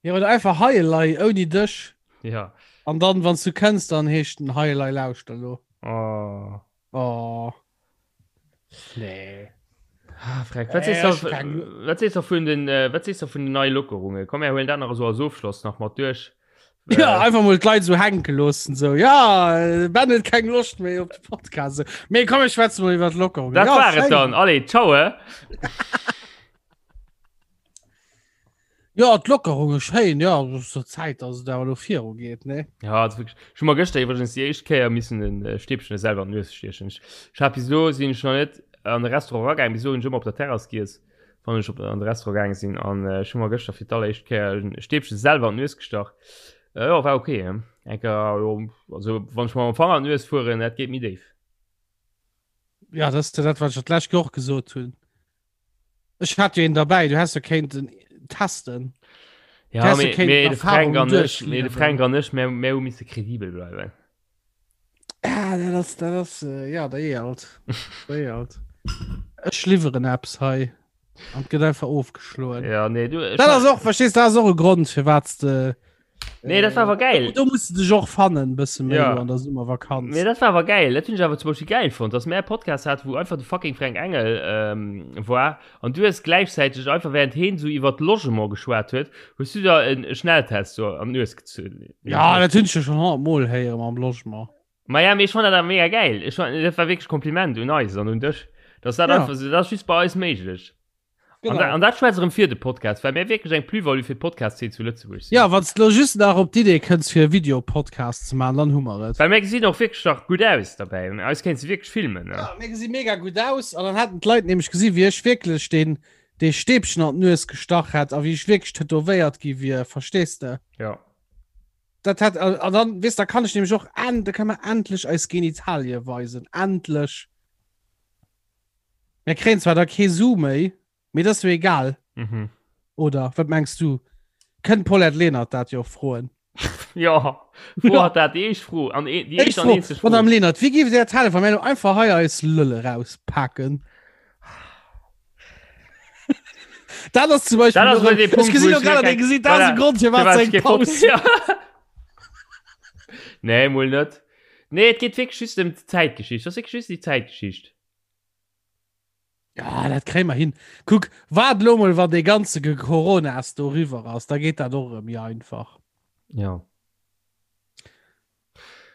Jo, oder einfach Hei elei ouni dech. Ja. An dann, wann s du kënns, dann heescht en Hei elei lauschter lo. Oh. Oh. Nee. Ah, Freck. Wat sees du, wat sees du vun den, äh, wat sees du vun den neie Lockerungen? Komm, mir huelen dat nach esou als Ofschloss nach mat duerch. Ja, äh, einfach mal d'Leit so hänke loossen so ja äh, Ben huet keng Loscht méi op de Podcast so. Mee komm ech schwätze mal iwwer d'Lockerung. Dat ja, war et dann. Allez, ciao. Eh? Ja, d'Lockerung ist schéin, ja, es ist zur Zäit, dass et awer lo viru geet, ne? Ja, das wirklich. Ech hu mer gëschter iwwregens déi éischt Kéier missen en äh, Stäbchen selwer an d'Nues stiechen. Ech, ech hat bis elo sinn ech nach net an de Restaurant eragaangen, bis elo hunn ech ëmmer op der Terrass giess. wann ech op an de Restaurant gaange sinn an äh, ech hu mer gëschter fir d'alleréischt Kéier en Stäbchen selwer an d'Nues gestach. Äh, jo, war okay. He? Enker, jo, also wann ech mer mam Fanger an d'Nues fueren, dat geet méi déif. Ja, das ist dat, wat ech dat lescht Joer och gesot hunn. Ech hat jo een derbäi, du häss jo kéinten testen. Ja, häss jo mee, kéinten mee de Fränk Erfahrungen an ech, mee de duerchliwweren. Fränk an ech, mir, mir hu misse kredibel bleiwen. Ah, dat ass, dat ass, äh, ja, der Ealt. Der Ealt. Ech liwweren eppes hei. An gëtt einfach ofgeschloen. Ja, nee, du, Dat ass och, verstehst, dat ass och e Grond, firwat de. Nee, dat war awer geil. Do, do musst du dech och fannen, bësse méi Ja. lo an der Summervakanz. Nee, dat war awer geil. Dat hunn ech awer zum Beispill geil fonnt, dass mär e Podcast hat, wou einfach de fucking Fränk Engel ähm, war an du hues gläichzäiteg einfach während heen sou iwwert Logement geschwat huet, hues du der en Schnelltest so an d'Nues gezunn. Ja, dat hunn ech jo schon 100 Mol héieren mam Logement. Ma ja, mee ech fand dat awer mega geil. Ech fand, dat war wierklech Kompliment un eis an un dech, dass dat Ja. einfach sou, dat ass just bei eis méiglech. Genau. An, da, an dat schwätzt erëm fir de Podcast, well mir wierklech eng Plus-value fir d'Podcast-Szene zu Lëtzebuerg sinn. Ja, wann s du lo just nach op d'Idee kënns fir e Videopodcast ze maachen, dann hu mer et. Well mir gesinn och wierklech nach gutt aus derbäi. Eis kéints de wierklech filmen. Ne? Ja, mir gesi mega gutt aus an dann hätten d'Leit nämlech gesi wéi ech wierklech deen dee Stäbchen an d'Nues gestach hätt a wéi ech wierklech tätowéiert gi wier, verstees de? Ja. Dat hätt, an dann, weess, da kann ech nämlech och en, da kann mer endlech eis Genitalie weisen, endlech. Mir kréien zwar da kee Su méi, mee dat ass jo egal. Mhm. Oder wat mengs du? Kënnt d'Paulette Lenert dat jo och froen? Ja, fro hat dat déi éischt Fro an déi éischt an eenzeg Fro. Madame Lenert, wéi géift Dir dat halen, wa mir elo einfach hei eis Lëlle rauspaken? Dat ass zum Beispill. Dat ass elo dee Punkt, Ech gesinn wou elo ech grad an mir dein Gesiit, dat ass e Voilà. Grond, firwat Firwat se ech eng kee Foto- Paus. Ja. Nee, mol net. Nee, et geet wierklech just ëm d'Zäitgeschicht. Dat ass wierklech just déi Zäitgeschicht. Ja, dat kréie mer hin. Kuck, waart elo mol, wann dee ganze Coronas do eriwwer ass, da geet dat och erëm méi einfach. Ja.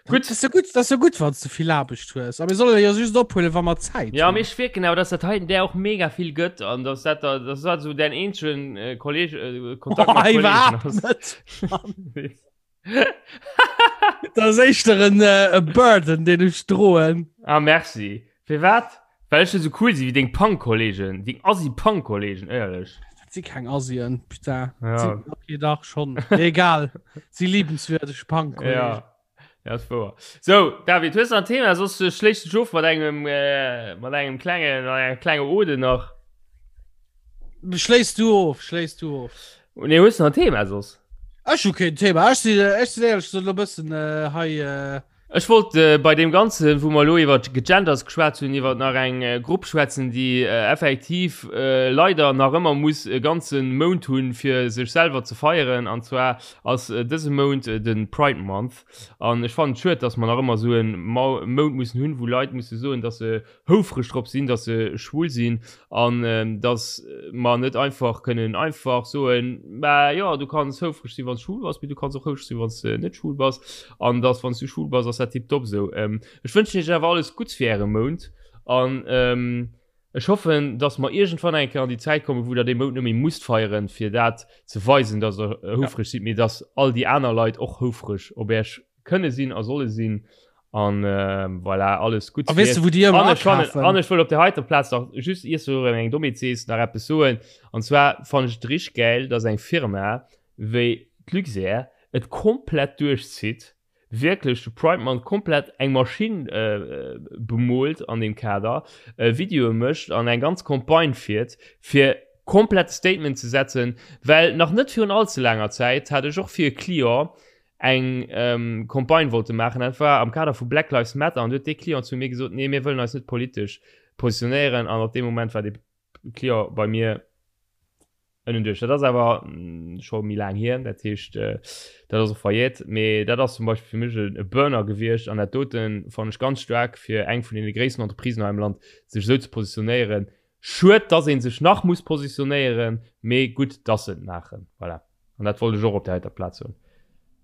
Gutt. Dat ass jo gutt, dat ass jo gutt, wann s du vill Aarbecht hues. A mir solle jo just ophuelen, wa mer Zäit Ja, hunn. mee ech wierken awer, dass dat heiten där och mega vill gëtt an dass dat da, dass dat esou däin eenzegen äh, Kolleg, äh, Kontakt mat Oh, Kollegen iwwerhaapt ass. net. Dat ass éischter en äh, e Burden, deen ech droen. Ah, merci. Firwat? Well ech net esou cool si wéi deng Punk-Kollegen, deng Assi-Punk-Kollegen, éierlech. Dat si keng Assien, putain. Ja. Si, okay, dach schon. Egal. Si liebenswürdeg Punk-Kollegen. Ja. Ja, ass wouer. So, David, hues du nach en Thema? Soss äh, schléiss dech of mat engem, äh, mat engem klengen, mat enger klenge Ode nach. Schléiss du of, schléiss du of. Nee, hues du nach en Thema soss? Ech hu keen Thema. Ech sinn, ech sinn éierlech gesot elo e bëssen äh, hei. Äh, Ech wollt äh, bei deem Ganzen, wou mer elo iwwer Gegenders geschwat hunn, iwwer nach eng äh, Grupp schwätzen, déi äh, effektiv äh, leider nach ëmmer muss e ganze Mount hunn, fir sech selwer ze feieren. An zwar ass äh, dëse Mount äh, de Pride Month. An ech fannen et schued, dass mer nach ëmmer esou e Mount mussen hunn, wou Leit musse soen, dass se houfreg drop sinn, dass se schwul sinn an dass mer net einfach kënnen einfach soen, mä jo, du kanns houfreg sinn, wann s schwul bass, mee du kanns och houfreg sinn, wann s de net schwul bass an dass, wann s du schwul bass, ass dat tiptop esou. Ech wënschen iech awer alles Gutts fir äre Mount an ech hoffen, dass mer iergendwann eng Kéier an déi Zäit kommen, wou der dee Mount net méi musst feieren, fir dat ze weisen, dass der houfreg sidd, mee dass all déi aner Leit och houfreg op iech kënne sinn a solle sinn an äh, voilà, alles gut A weess du, wou déi ëmmer akafen? An ech wëll op der heiter Plaz nach just iers du erëm eng Dommheet sees nach eppes soen an zwar fannen ech et richteg gäil, dass eng Firma wéi d'Luxair et komplett duerchzitt, wierklech de Pride Month komplett eng Maschinn äh, bemoolt an deem Kader, äh, Videoe mécht an eng ganz Campagne fiert fir komplett Statement ze setzen, well nach net virun all ze laanger Zäit hat ech och fir e Client eng Campagne wollte maachen, dat war am Kader vu Black Lives Matter, an du huet dee Client zu mir gesot, nee, mir wëllen eis net politesch positionéieren, an op dee Moment war dee Client bei mir ënnen duerch. Dat ass awer scho méi laang hier, dat heescht, dat ass och verjährt, mee dat ass zum Beispill fir mech e Burner gewiescht, an dat dote fannen ech ganz staark fir eng vun deene gréissten Entreprisen hei am Land, sech esou ze positionéieren. Schued, dass ee sech nach muss positionéieren, mee gutt, dass se et maachen. Voilà. An dat wollt ech och op der heiter Plaz soen,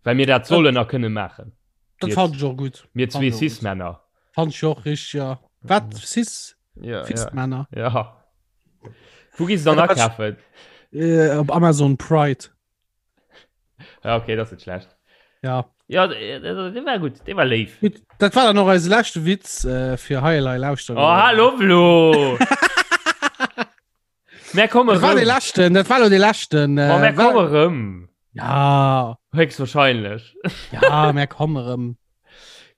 well mir dat sollen a kënne maachen. Dat fand ech och gutt. Mir zwee Cis-Männer. Fand ech och richteg, ja. Wat? Cis? Ja, Cis-Männer? Ja. Wou gees du dann akafen? Äh, op Amazon Pride. Ja, okay, dat ass net schlecht. Ja. Ja, dee war gutt, dee war léif. Gutt, dat war dann och eise leschte Witz äh, fir hei elei lauschteren. Oh, hallo, Flo! Mer komme Dat war de leschten, dat war lo de leschten. Äh, mer komme rëm. Ja. Höchstwahrscheinlech. Ja, mer komme rëm.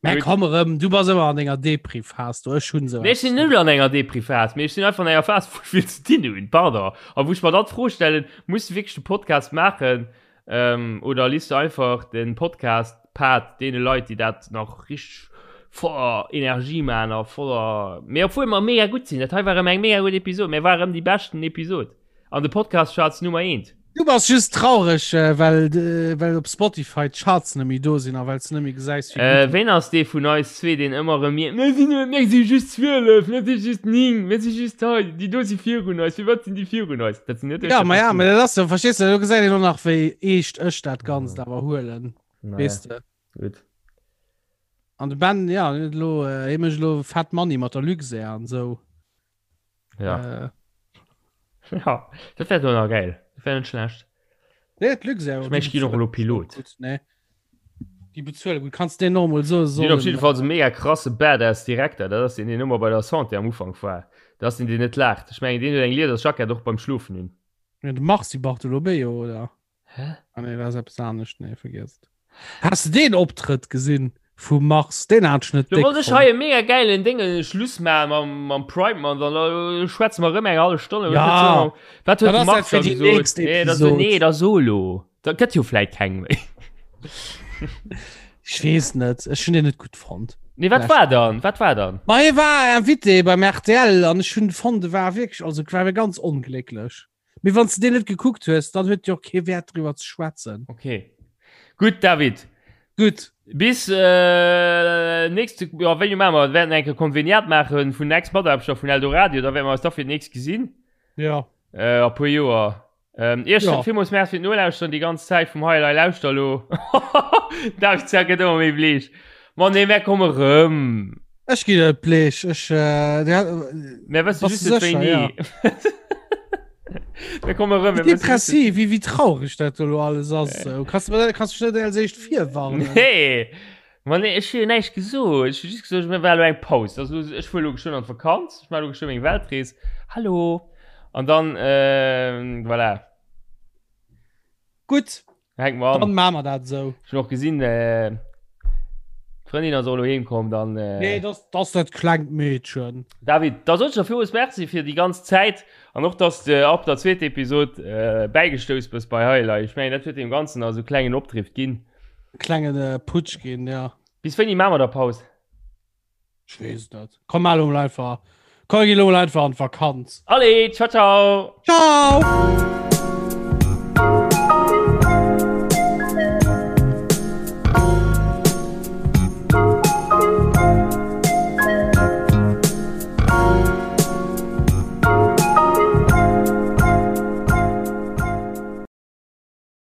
Mer komme rëm. Du bass ëmmer an enger Depri-Phas, du ech hunn se. Nee, ech sinn net an enger Depri-Phas, mee ech sinn einfach an enger Phas, wou ech vill ze dinn hunn, pardon. A wou ech mer dann d'Fro stellen, muss du wierklech de Podcast maachen, ähm, oder liest du einfach den Podcast-Part deene Leit, déi dat nach richteg voller Energie maachen a voller, mee obwuel mer mega gutt sinn, dat hei war erëm eng mega gutt Episod, mir war erëm déi beschten Episod an de Podcast-Charts Nummer eent. Du bass just traureg, äh, well, äh, well op Spotify d'Charts net méi do sinn a well s du net méi gesäis, wéi Äh, gutt. ween ass dee vun eis zwee, deen ëmmer erëm mierkt, Mir sinn, mir si just 12, mir si just 9, mir si just hei, déi do si virun eis, firwat sinn déi virun eis? Dat sinn net ech, Ja, dat ma bass ja, du. ma dat ass jo, verstees du, do gesäit een och nach, wéi eescht ech dat Ganzt awer huelen, Naja, weess de. gutt. An de Ben, ja, hien huet elo, äh, hie mécht elo fett Money mat der Luxair an esou. Ja. Äh. Ja, dat wär doch nach geil. Dat wär net schlecht. Nee, d'Luxair. Ich mein, ich ginn och elo Pilot. Gut, nee. Déi bezuele gut. Kannst den normal so so. Op jeden Fall so mega krasse Badass Direkter. Dat ass den, deen ëmmer bei der Santé am Ufank war. Dat ass den, deen net laacht. Ech mengen, deen huet eng Liedersjackett och beim Schlofen un. Ja, de Mars Bartolomeo, oder? Hä? Ah, nee, dat ass eppes anescht. Nee, vergiess et. Has de deen Optrëtt gesinn vum Mars? Deen hat ech net Do déck wollt ech hei fonnt. e mega gäilen Déngen Schluss maachen mam, mam Pride Month an da schwätze mer erëm eng hallef Stonn. Ja, Wat huet dat de ass dat Mars fir da déi gesot? nächst Nee, da so, Episod. nee, da so elo. Da gëtt jo vläit keng méi. Ech weess net, ech hunn deen net gutt fonnt. Nee, wat war dann? Wat war dann? Ma hie war Invité beim RTL an ech hunn fonnt, e war wierklech, also war ganz onglécklech. Mee wann s de deen net gekuckt hues, dann huet jo och kee Wäert driwwer ze schwätzen. Okay. Gutt, David. Gutt. Bis äh, nächste, ja, wéini maache mer? Wäerten eng Kéier Konveniat maache vun Ex-Mataarbechter vun Eldoradio, da wäerte mer eis da fir d'nächst gesinn. Ja. Äh, a puer Joer. Ähm, Iech Ja. villmools Merci fir d'Nolauschteren déi ganz Zäit vum Hei Elei Lauschter elo. David Zerr gëtt ëmmer méi bleech. Ma nee, mär komme rëm. Ech ginn net bleech. Ech, äh, der, Mär wësse Bass just du net sécher, wéini. ja. Mir komme rëm. Wéi depressiv, wéi, wéi traureg dat do elo alles ass. Äh. Kanns du, kanns du net als éischt virwarnen? Nee. Ma nee, ech hu jo näischt gesot. Ech hu just gesot, mir war elo eng Paus. Also, ech fuer elo geschwënn an d'Vakanz. Ech maache elo geschwënn meng Weltrees. Hallo. An dann, äh, voilà. Gutt. Hänke mer an. Dann maache mer dat esou. Ech hunn och gesinn, äh, Ech D'Frëndin ass och elo heem komm, dann. Äh... Nee, das, das dat klengt Meedchen. David, da sot ech der villmools Merci fir déi ganz Zäit an och, dass de ab der zweeter Episod äh, bäigestouss bist bei Highlight. Ech mengen, dat huet deem Ganzen also klengen Opdrift ginn. Klengen äh, Putsch ginn, ja. Bis wéini maache mer da Paus? Ech weess et net. Komm, mal elo einfach. Komm, geh elo einfach an d'Vakanz. Allez, ciao, ciao! Ciao!